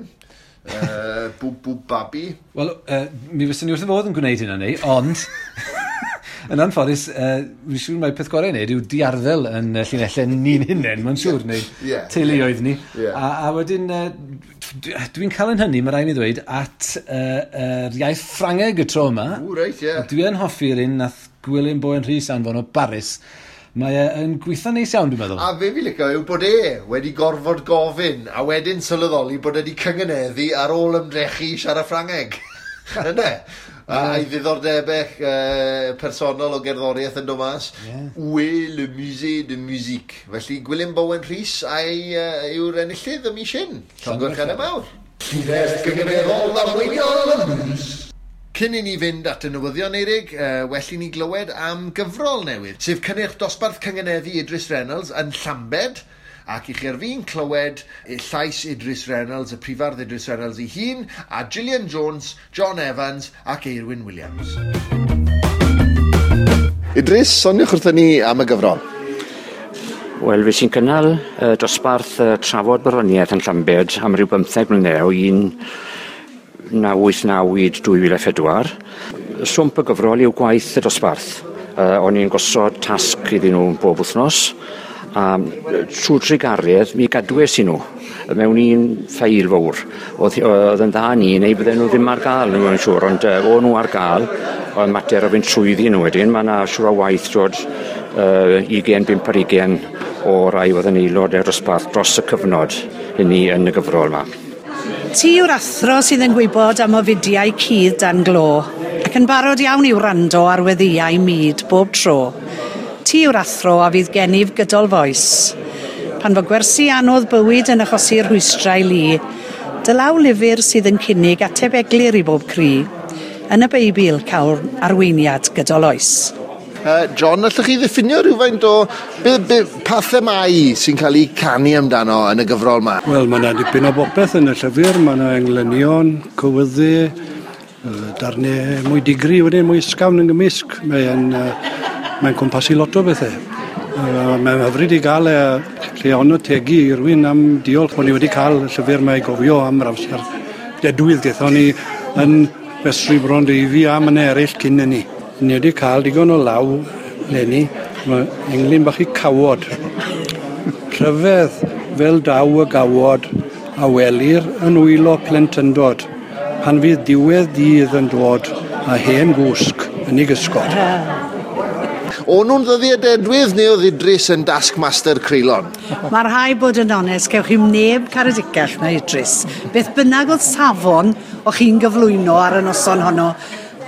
Bwb bwb babi. Wel, mi fyswn ni wrth y fodd yn gwneud hynna ni, ond yn anffodus, fi'n siŵr mai peth gorau i wneud yw diarddel yn llinellau ni'n hunain, mae'n siŵr, neu teuluoedd ni. A wedyn, dwi'n cael yn hynny, mae rhaid mi ddweud, at yr iaith Ffrangeg y tro yma. O, reit, ie. Dwi yn hoffi'r un nath Gwilym Bowen Rhys anfon o Baris. Mae e yn gweithio neis iawn, dwi'n meddwl. A fe fi licio yw bod e wedi gorfod gofyn, a wedyn sylweddoli bod e wedi cyngeneddu ar ôl ymdrechu i siarad Ffrangeg. Ynde? A'i ddiddordebau personol o gerddoriaeth yn dod mas. Où est le musée de musique? Felly Gwilym Bowen Rhys a'i yw'r enillydd y mis hyn. Llongyfarchiadau mawr. Llinell gynganeddol arweiniol y mis. Cyn i ni fynd at y newyddion, Eirig, well i ni glywed am gyfrol newydd, sef cynnyrch dosbarth cyngeneddu Idris Reynolds yn Llambed, ac i chi ar fin clywed llais Idris Reynolds, y prifardd Idris Reynolds ei hun, a Gillian Jones, John Evans ac Eirwyn Williams. Idris, soniwch wrthyn ni am y gyfrol. Wel, fe sy'n cynnal dosbarth trafod barddoniaeth yn Llambed am ryw 15 mlynedd o 1989 i 2004. Swmp y gyfrol yw gwaith y dosbarth. O'n i'n gosod tasg iddyn nhw bob wythnos, a trwy trugaredd mi gadwes i nhw mewn un ffeil fawr. Oedd yn dda ni, neu bydden nhw ddim ar gael, nhw'n siŵr, ond o'n nhw ar gael, ond mater o fynd trwyddi nhw wedyn, mae yna siŵr o waith dod 25 ar 20 o rai oedd yn aelod o'r dosbarth dros y cyfnod hynny yn y gyfrol yma. Ti yw'r athro sydd yn gwybod am ofidiau cudd dan glo, ac yn barod iawn i wrando ar weddïau mud bob tro. Ti yw'r athro a fydd gennyf gydol foes. Pan fo gwersi anodd bywyd yn achosi rhwystrau lu, dy law lyfr sydd yn cynnig ateb eglur i bob cri. Yn y Beibl cael arweiniad gydol oes. John, allwch chi ddiffinio rhywfaint o pa themâu sy'n cael ei canu amdano yn y gyfrol yma? Wel, mae yna dipyn o bopeth yn y llyfr. Mae yna englynion, cywyddu, darnau mwy digri wedyn, mwy ysgafn yn gymysg. Mae'n cwmpasu lot o bethau. Mae'n hyfryd i gael lle ond tegu i rywun am diolch bod ni wedi cael y llyfr yma i gofio am yr amser dedwydd gaethon ni yn Festri Brondeifi a mannau eraill cyn hynny. Ni wedi cael digon o law leni, mae englyn bach i cawod. Rhyfedd fel daw y gawod a welir yn wylo plentyndod, pan fydd diwedd dydd yn dod a hen gwsg yn ei gysgod. O'n nhw'n ddyddiau dedwydd neu oedd Idris yn taskmaster creulon? Mae rhai bod yn onest, cewch chi'm neb caredicach na Idris. Beth bynnag oedd safon o'ch chi'n gyflwyno ar y noson honno,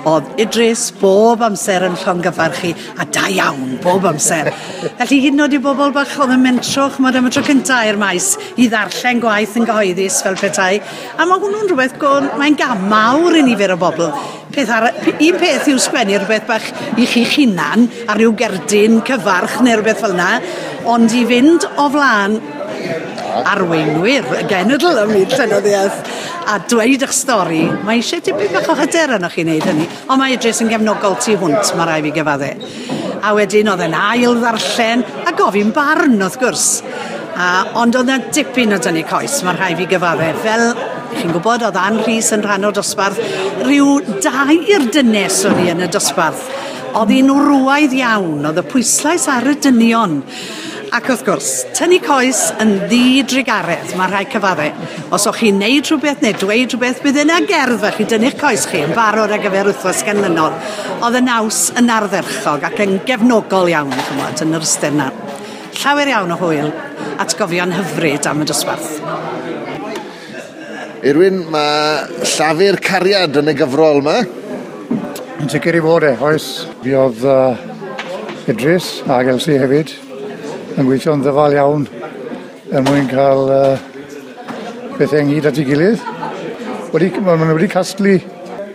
oedd Idris bob amser yn llongyfarch chi, a da iawn bob amser. Felly hyd yn oed i bobl bach oedd yn mentro, ch'mod, am y tro cynta i'r maes i ddarllen gwaith yn gyhoeddus fel petai. A mae hwnnw'n rhywbeth, mae'n gam mawr i nifer o bobl. Un peth yw sgwennu rhywbeth bach i chi'ch hunan ar ryw gerdyn cyfarch neu rhywbeth fel yna, ond i fynd o flaen arweinwyr y genedl ym myd llenyddiaeth a dweud eich stori, mae eisiau tipyn bach o hyder arnoch chi wneud hynny, ond mae Idris yn gefnogol tu hwnt, mae rhaid fi gyfadde. A wedyn oedd e'n ail ddarllen a gofyn barn wrth gwrs. Ond oedd 'na dipyn o dynnu coes, mae rhaid fi gyfadde. Fel chi'n gwybod, oedd Ann Rhys yn rhan o'r dosbarth. Rhyw dair dynes o'n i yn y dosbarth. Oedd hi'n wrywaidd iawn, oedd y pwyslais ar y dynion. Ac wrth gwrs, tynnu coes yn ddidrugaredd, mae rhaid cyfadde. Os o'ch chi'n neud rhywbeth neu dweud rhywbeth, bydd yna gerdd felly dynnu'ch coes chi yn barod ar gyfer wythnos ganlynol. Oedd y naws yn ardderchog ac yn gefnogol iawn, chymod, yn yr ystyr 'na. Llawer iawn o hwyl, atgofion hyfryd am y dosbarth. Irwyn, mae llafur cariad yn y gyfrol yma. Yn sicr i fod e, oes. Fi oedd Idris ac Elsie hefyd yn gweithio'n ddyfal iawn er mwyn cael pethau ynghyd at ei gilydd. Maen nhw wedi casglu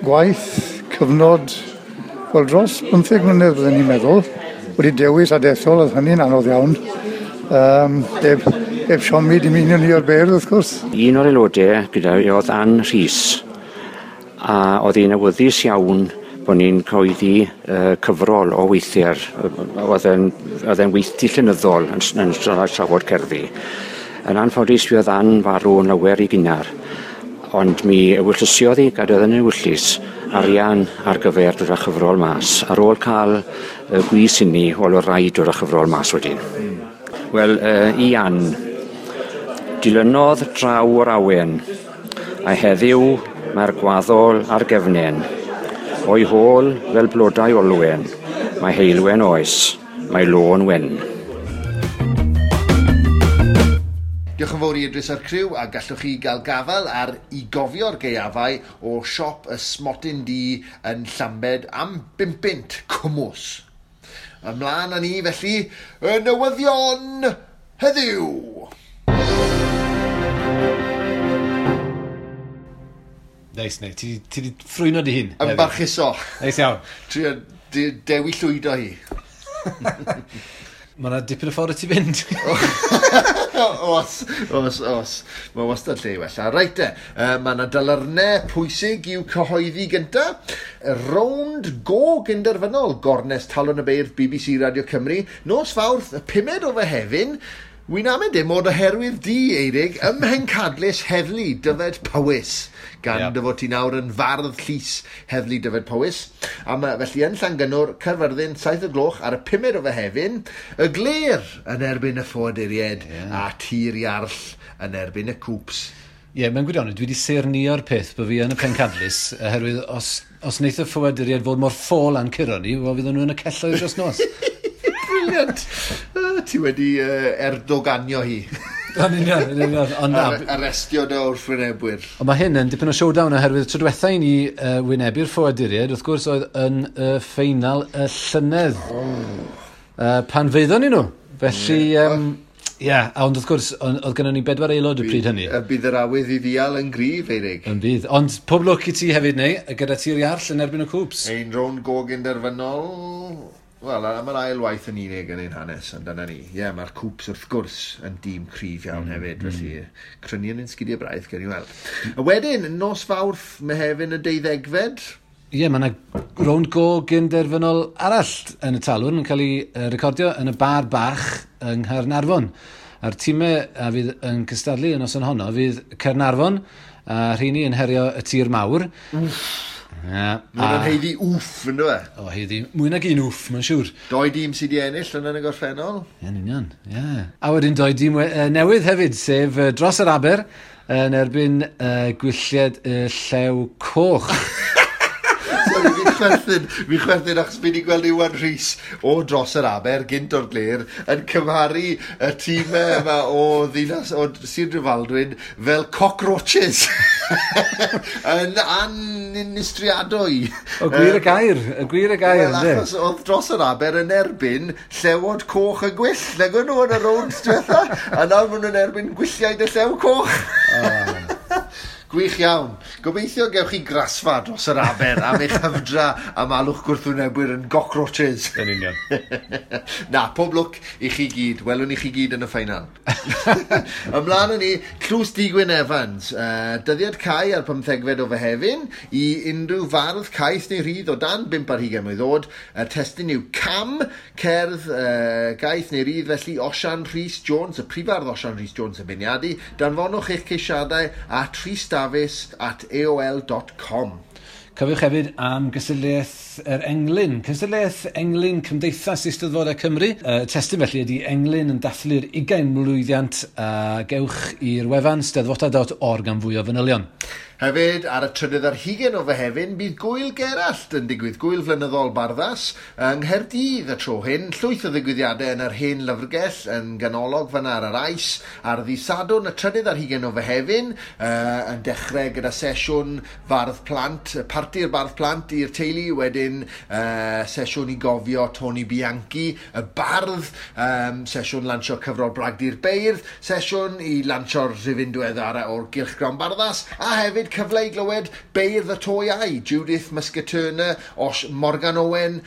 gwaith cyfnod, wel, dros 15 mlynedd byddwn ni'n meddwl, wedi dewis a dethol, oedd hynny'n anodd iawn. Heb siomi dim un o'n i o'r beirdd, wrth gwrs. Un o'r aelodau gyda fi oedd Ann Rhys, a oedd hi'n awyddus iawn bod ni'n cyhoeddi cyfrol o weithiau'r, oedd e'n weithdy llenyddol yn trafod cerddi. Yn anffodus, fi oedd Ann farw yn lawer i gynnar, ond mi ewyllysiodd hi, gadodd yn ewyllys, arian ar gyfer dod â chyfrol mas. Ar ôl cael y gwys inni, wel, oedd rhaid dod â chyfrol mas wedyn. Wel, i Ann, dilynodd draw o'r awen, a heddiw mae'r gwaddol ar gefnen. O'i hôl fel blodau olwen, mae heulwen oes, mae lôn wen. Diolch yn fawr i Idris a'r criw, a gallwch chi gael gafael ar I Gofio'r Gaeafau o siop y Smotyn Du yn Llambed am 5 bunt cwmws. Ymlaen â ni felly, y newyddion heddiw! Neis, neu, ti 'di ffrwyno dy hun. Yn barchuso. Neis iawn. Trio dewi llwydo hi. Mae yna dipyn o ffordd i ti fynd. Os. Mae wastad lle i wella. Reit te, mae yna dalyrnau pwysig i'w cyhoeddi gynta. Rownd go gynderfynol gornest Talwrn y Beirdd BBC Radio Cymru. Nos Fawrth, y 5 o Fehefin. Wy'n amau dim ond oherwydd di, Eirig, ym Mhencadlys Heddlu Dyfed Powys, gan dy fod ti nawr yn fardd llys Heddlu Dyfed Powys. A mae felly yn Llangynnwr, Caerfyrddin, 7 o gloch ar y 5 o Fehefin, y Glêr yn erbyn y Ffoaduriaid a Tir Iarll yn erbyn y Cŵps. Ie, mewn gwirionedd, dwi wedi saernïo'r peth bod fi yn y Pencadlys, oherwydd os wneith y Ffoaduriaid fod mor ffôl a'n curo ni, wel, fydden nhw yn y celloedd dros nos. Brilliant. Ti wedi erdoganio hi. Yn union. Ond na. Arestio dy wrthwynebwyr. Ond mae hyn yn dipyn o showdown oherwydd tro diwetha i ni wynebu'r Ffoaduriaid, wrth gwrs, oedd yn y ffeinal y llynedd. Pan feiddon ni nhw. Felly, ie, ond wrth gwrs, oedd gennym ni 4 aelod y pryd hynny. Bydd yr awydd i ddial yn gryf, Eirig. Yn bydd. Ond pob lwc i ti hefyd, neu, gyda Tir Iarll yn erbyn y Cŵps. Ein rownd go gynderfynol. Wel, am yr ail waith yn unig yn ein hanes, ond dyna ni. Ie, mae'r Cŵps wrth gwrs yn dîm cryf iawn hefyd, felly crynu yn ein sgidiau braidd, gewn ni weld. A wedyn, nos Fawrth, Mehefin y 12fed. Ie, mae yna rownd go gynderfynol arall yn y Talwrn yn cael ei recordio yn y bar bach yng Nghaernarfon. A'r tîmau a fydd yn cystadlu yn noson honno fydd Caernarfon, a rheini yn herio y Tir Mawr. Wff. Mae'n nhw'n haeddu wff, yn dwi? O, haeddu mwy nag un wff, mae'n siŵr. 2 dîm sydd wedi ennill yn y gorffennol. Ie, yn union, ie. A wedyn 2 dîm newydd hefyd, sef dros yr Aber yn erbyn Gwyllied y Llew Coch. Sorry, fi chwerthin achos fi wedi gweld Iwan Rhys o dros yr Aber, gynt o'r Glêr, yn cymharu y tîmau yma o ddinas, o Sir Drefaldwyn fel cockroaches. Yn aninistriadwy. O gwir y gair, y gwir y gair. Wel, achos oedd dros yr Aber yn erbyn llewod coch y gwyll. Nag o'n nhw yn y rownd diwetha, a nawr maen nhw'n erbyn gwylliaid y llew coch. Gwych iawn. Gobeithio gewch chi grasfa dros yr aber am eich hyfdra am alw'ch gwrthwynebwyr yn cockroaches. Yn union. Na, pob lwc i chi gyd. Welwn i chi gyd yn y ffeinal. Ymlaen â ni, Tlws Digwyn Evans. Dyddiad cau ar 15fed o Fehefin i unrhyw fardd caeth neu rhydd o dan 25 mlwydd oed. Y testun yw Cam, cerdd gaeth neu rydd felly Osian Rhys Jones, y prifardd Osian Rhys Jones yn beirniadu. Danfonwch eich ceisiadau at rhysdafis@aol.com. Cofiwch hefyd am gystadleuaeth yr Englyn. Cystadleuaeth Englyn Cymdeithas Eisteddfodau Cymru. Y testun felly ydy Englyn yn dathlu'r 20 mlwyddiant, a gewch i'r wefan steddfota.org am fwy o fanylion. Hefyd, ar y 23 o Fehefin, bydd Gwyl Gerallt yn digwydd, Gwyl Flynyddol Barddas, yng Nghaerdydd y tro hyn. Llwyth o ddigwyddiadau yn yr hen lyfrgell yn ganolog fyna ar yr Ais. Ar ddydd Sadwrn, y 23 o Fehefin, yn dechrau gyda sesiwn fardd plant, parti'r bardd plant i'r teulu, wedyn sesiwn i gofio Tony Bianchi, y bardd, sesiwn lansio cyfrol Bragdy'r Beirdd, sesiwn i lansio'r rhifyn diweddara o'r Gylchgrawn Barddas, a hefyd cyfle i glywed beirdd y to iau, Judith Muscat Turner, Osh Morgan Owen,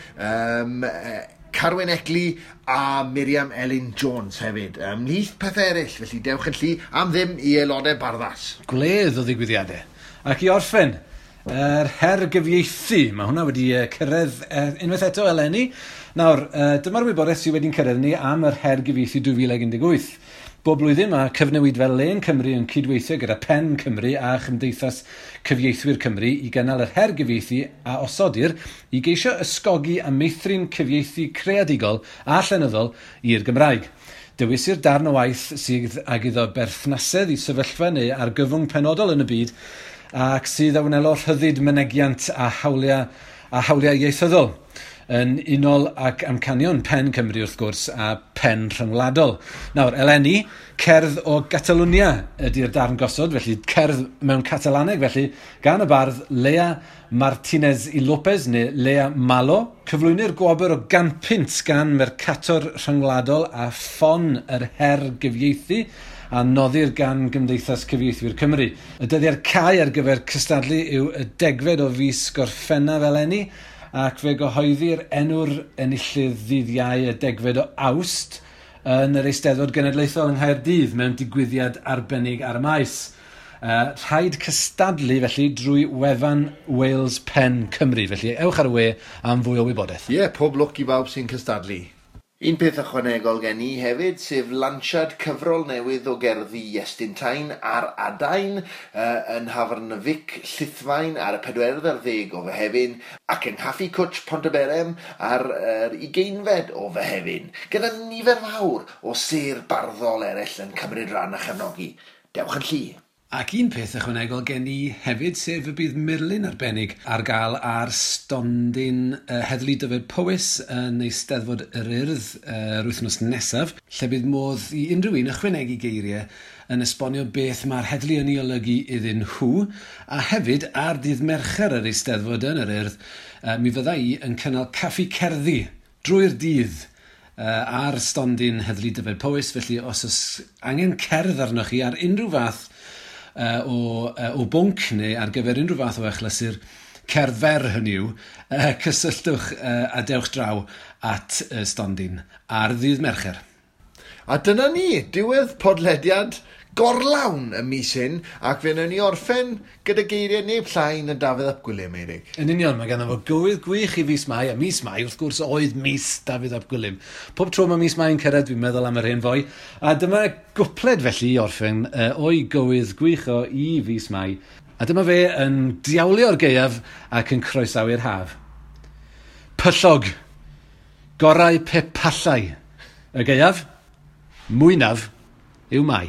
Carwyn Eckley a Miriam Elin Jones hefyd. Ymhlith pethau eraill, felly dewch yn llu am ddim i aelodau Barddas. Gwledd o ddigwyddiadau. Ac i orffen, yr her gyfieithu. Mae hwnna wedi cyrraedd unwaith eto eleni. Nawr, dyma'r wybodaeth sydd wedi'n cyrraedd ni am yr her gyfieithu 2018. Bob blwyddyn mae Cyfnewidfa Lên Cymru yn cydweithio gyda Pen Cymru a Chymdeithas Cyfieithwyr Cymru i gynnal yr her gyfieithu a osodir i geisio ysgogi a meithrin cyfieithu creadigol a llenyddol i'r Gymraeg. Dewisir darn o waith sydd ag iddo berthnasedd i sefyllfa neu argyfwng penodol yn y byd ac sydd a wnelo rhyddid mynegiant a hawliau ieithyddol yn unol ac amcanion Pen Cymru wrth gwrs a Pen Rhyngwladol. Nawr, eleni, cerdd o Gatalunia ydy'r darn gosod, felly cerdd mewn Catalaneg, felly gan y bardd Lea Martínez i López neu Lea Malo. Cyflwynir gwobr o 100 punt gan Mercator Rhyngwladol a ffon yr her gyfieithu a noddir gan Gymdeithas Cyfieithwyr Cymru. Y dyddiad cau ar gyfer cystadlu yw y 10fed o fis Gorffennaf eleni, ac fe gyhoeddir enw'r enillydd ddydd Iau y 10fed o Awst yn yr Eisteddfod Genedlaethol yng Nghaerdydd mewn digwyddiad arbennig ar y maes. Rhaid cystadlu felly drwy wefan Wales Pen Cymru. Felly ewch ar y we am fwy o wybodaeth. Ie, yeah, pob lwc i bawb sy'n cystadlu. Un peth ychwanegol gen i hefyd, sef lansiad cyfrol newydd o gerddi Iestyn Tyne ar Adain yn Nhafarn y Fic Llithfaen ar y 24 o Fehefin ac yng Nghaffi Cwtch Pontyberem ar yr 20fed o Fehefin, gyda nifer fawr o sêr barddol eraill yn cymryd rhan a chefnogi. Dewch yn llu. Ac un peth ychwanegol gen i hefyd, sef y bydd murlun arbennig ar gael ar stondin Heddlu Dyfed Powys yn Eisteddfod yr Urdd yr wythnos nesaf, lle bydd modd i unrhyw un ychwanegu geiriau yn esbonio beth mae'r heddlu yn ei olygu iddyn nhw, a hefyd ar ddydd Mercher yr Eisteddfod yn yr Urdd, mi fydda i yn cynnal caffi cerddi drwy'r dydd ar stondin Heddlu Dyfed Powys, felly os oes angen cerdd arnoch chi ar unrhyw fath o bwnc neu ar gyfer unrhyw fath o achlysur, cerdd fer hynny yw, cysylltwch a dewch draw at stondin ar ddydd Mercher. A dyna ni, diwedd podlediad gorlawn y mis hyn, ac fe wnawn ni orffen gyda geiriau neb llai na Dafydd ap Gwilym, Eirig. Yn union, mae ganddo fo gywydd gwych i fis Mai, a mis Mai, wrth gwrs, oedd mis Dafydd ap Gwilym. Pob tro mae mis Mai yn cyrraedd, dwi'n meddwl am yr hen foi. A dyma gwpled felly i orffen o'i gywydd gwych o i fis Mai. A dyma fe yn diawlio'r gaeaf ac yn croesawu'r haf. Pyllog, gorau pe pallai. Y gaeaf, mwynaf yw Mai.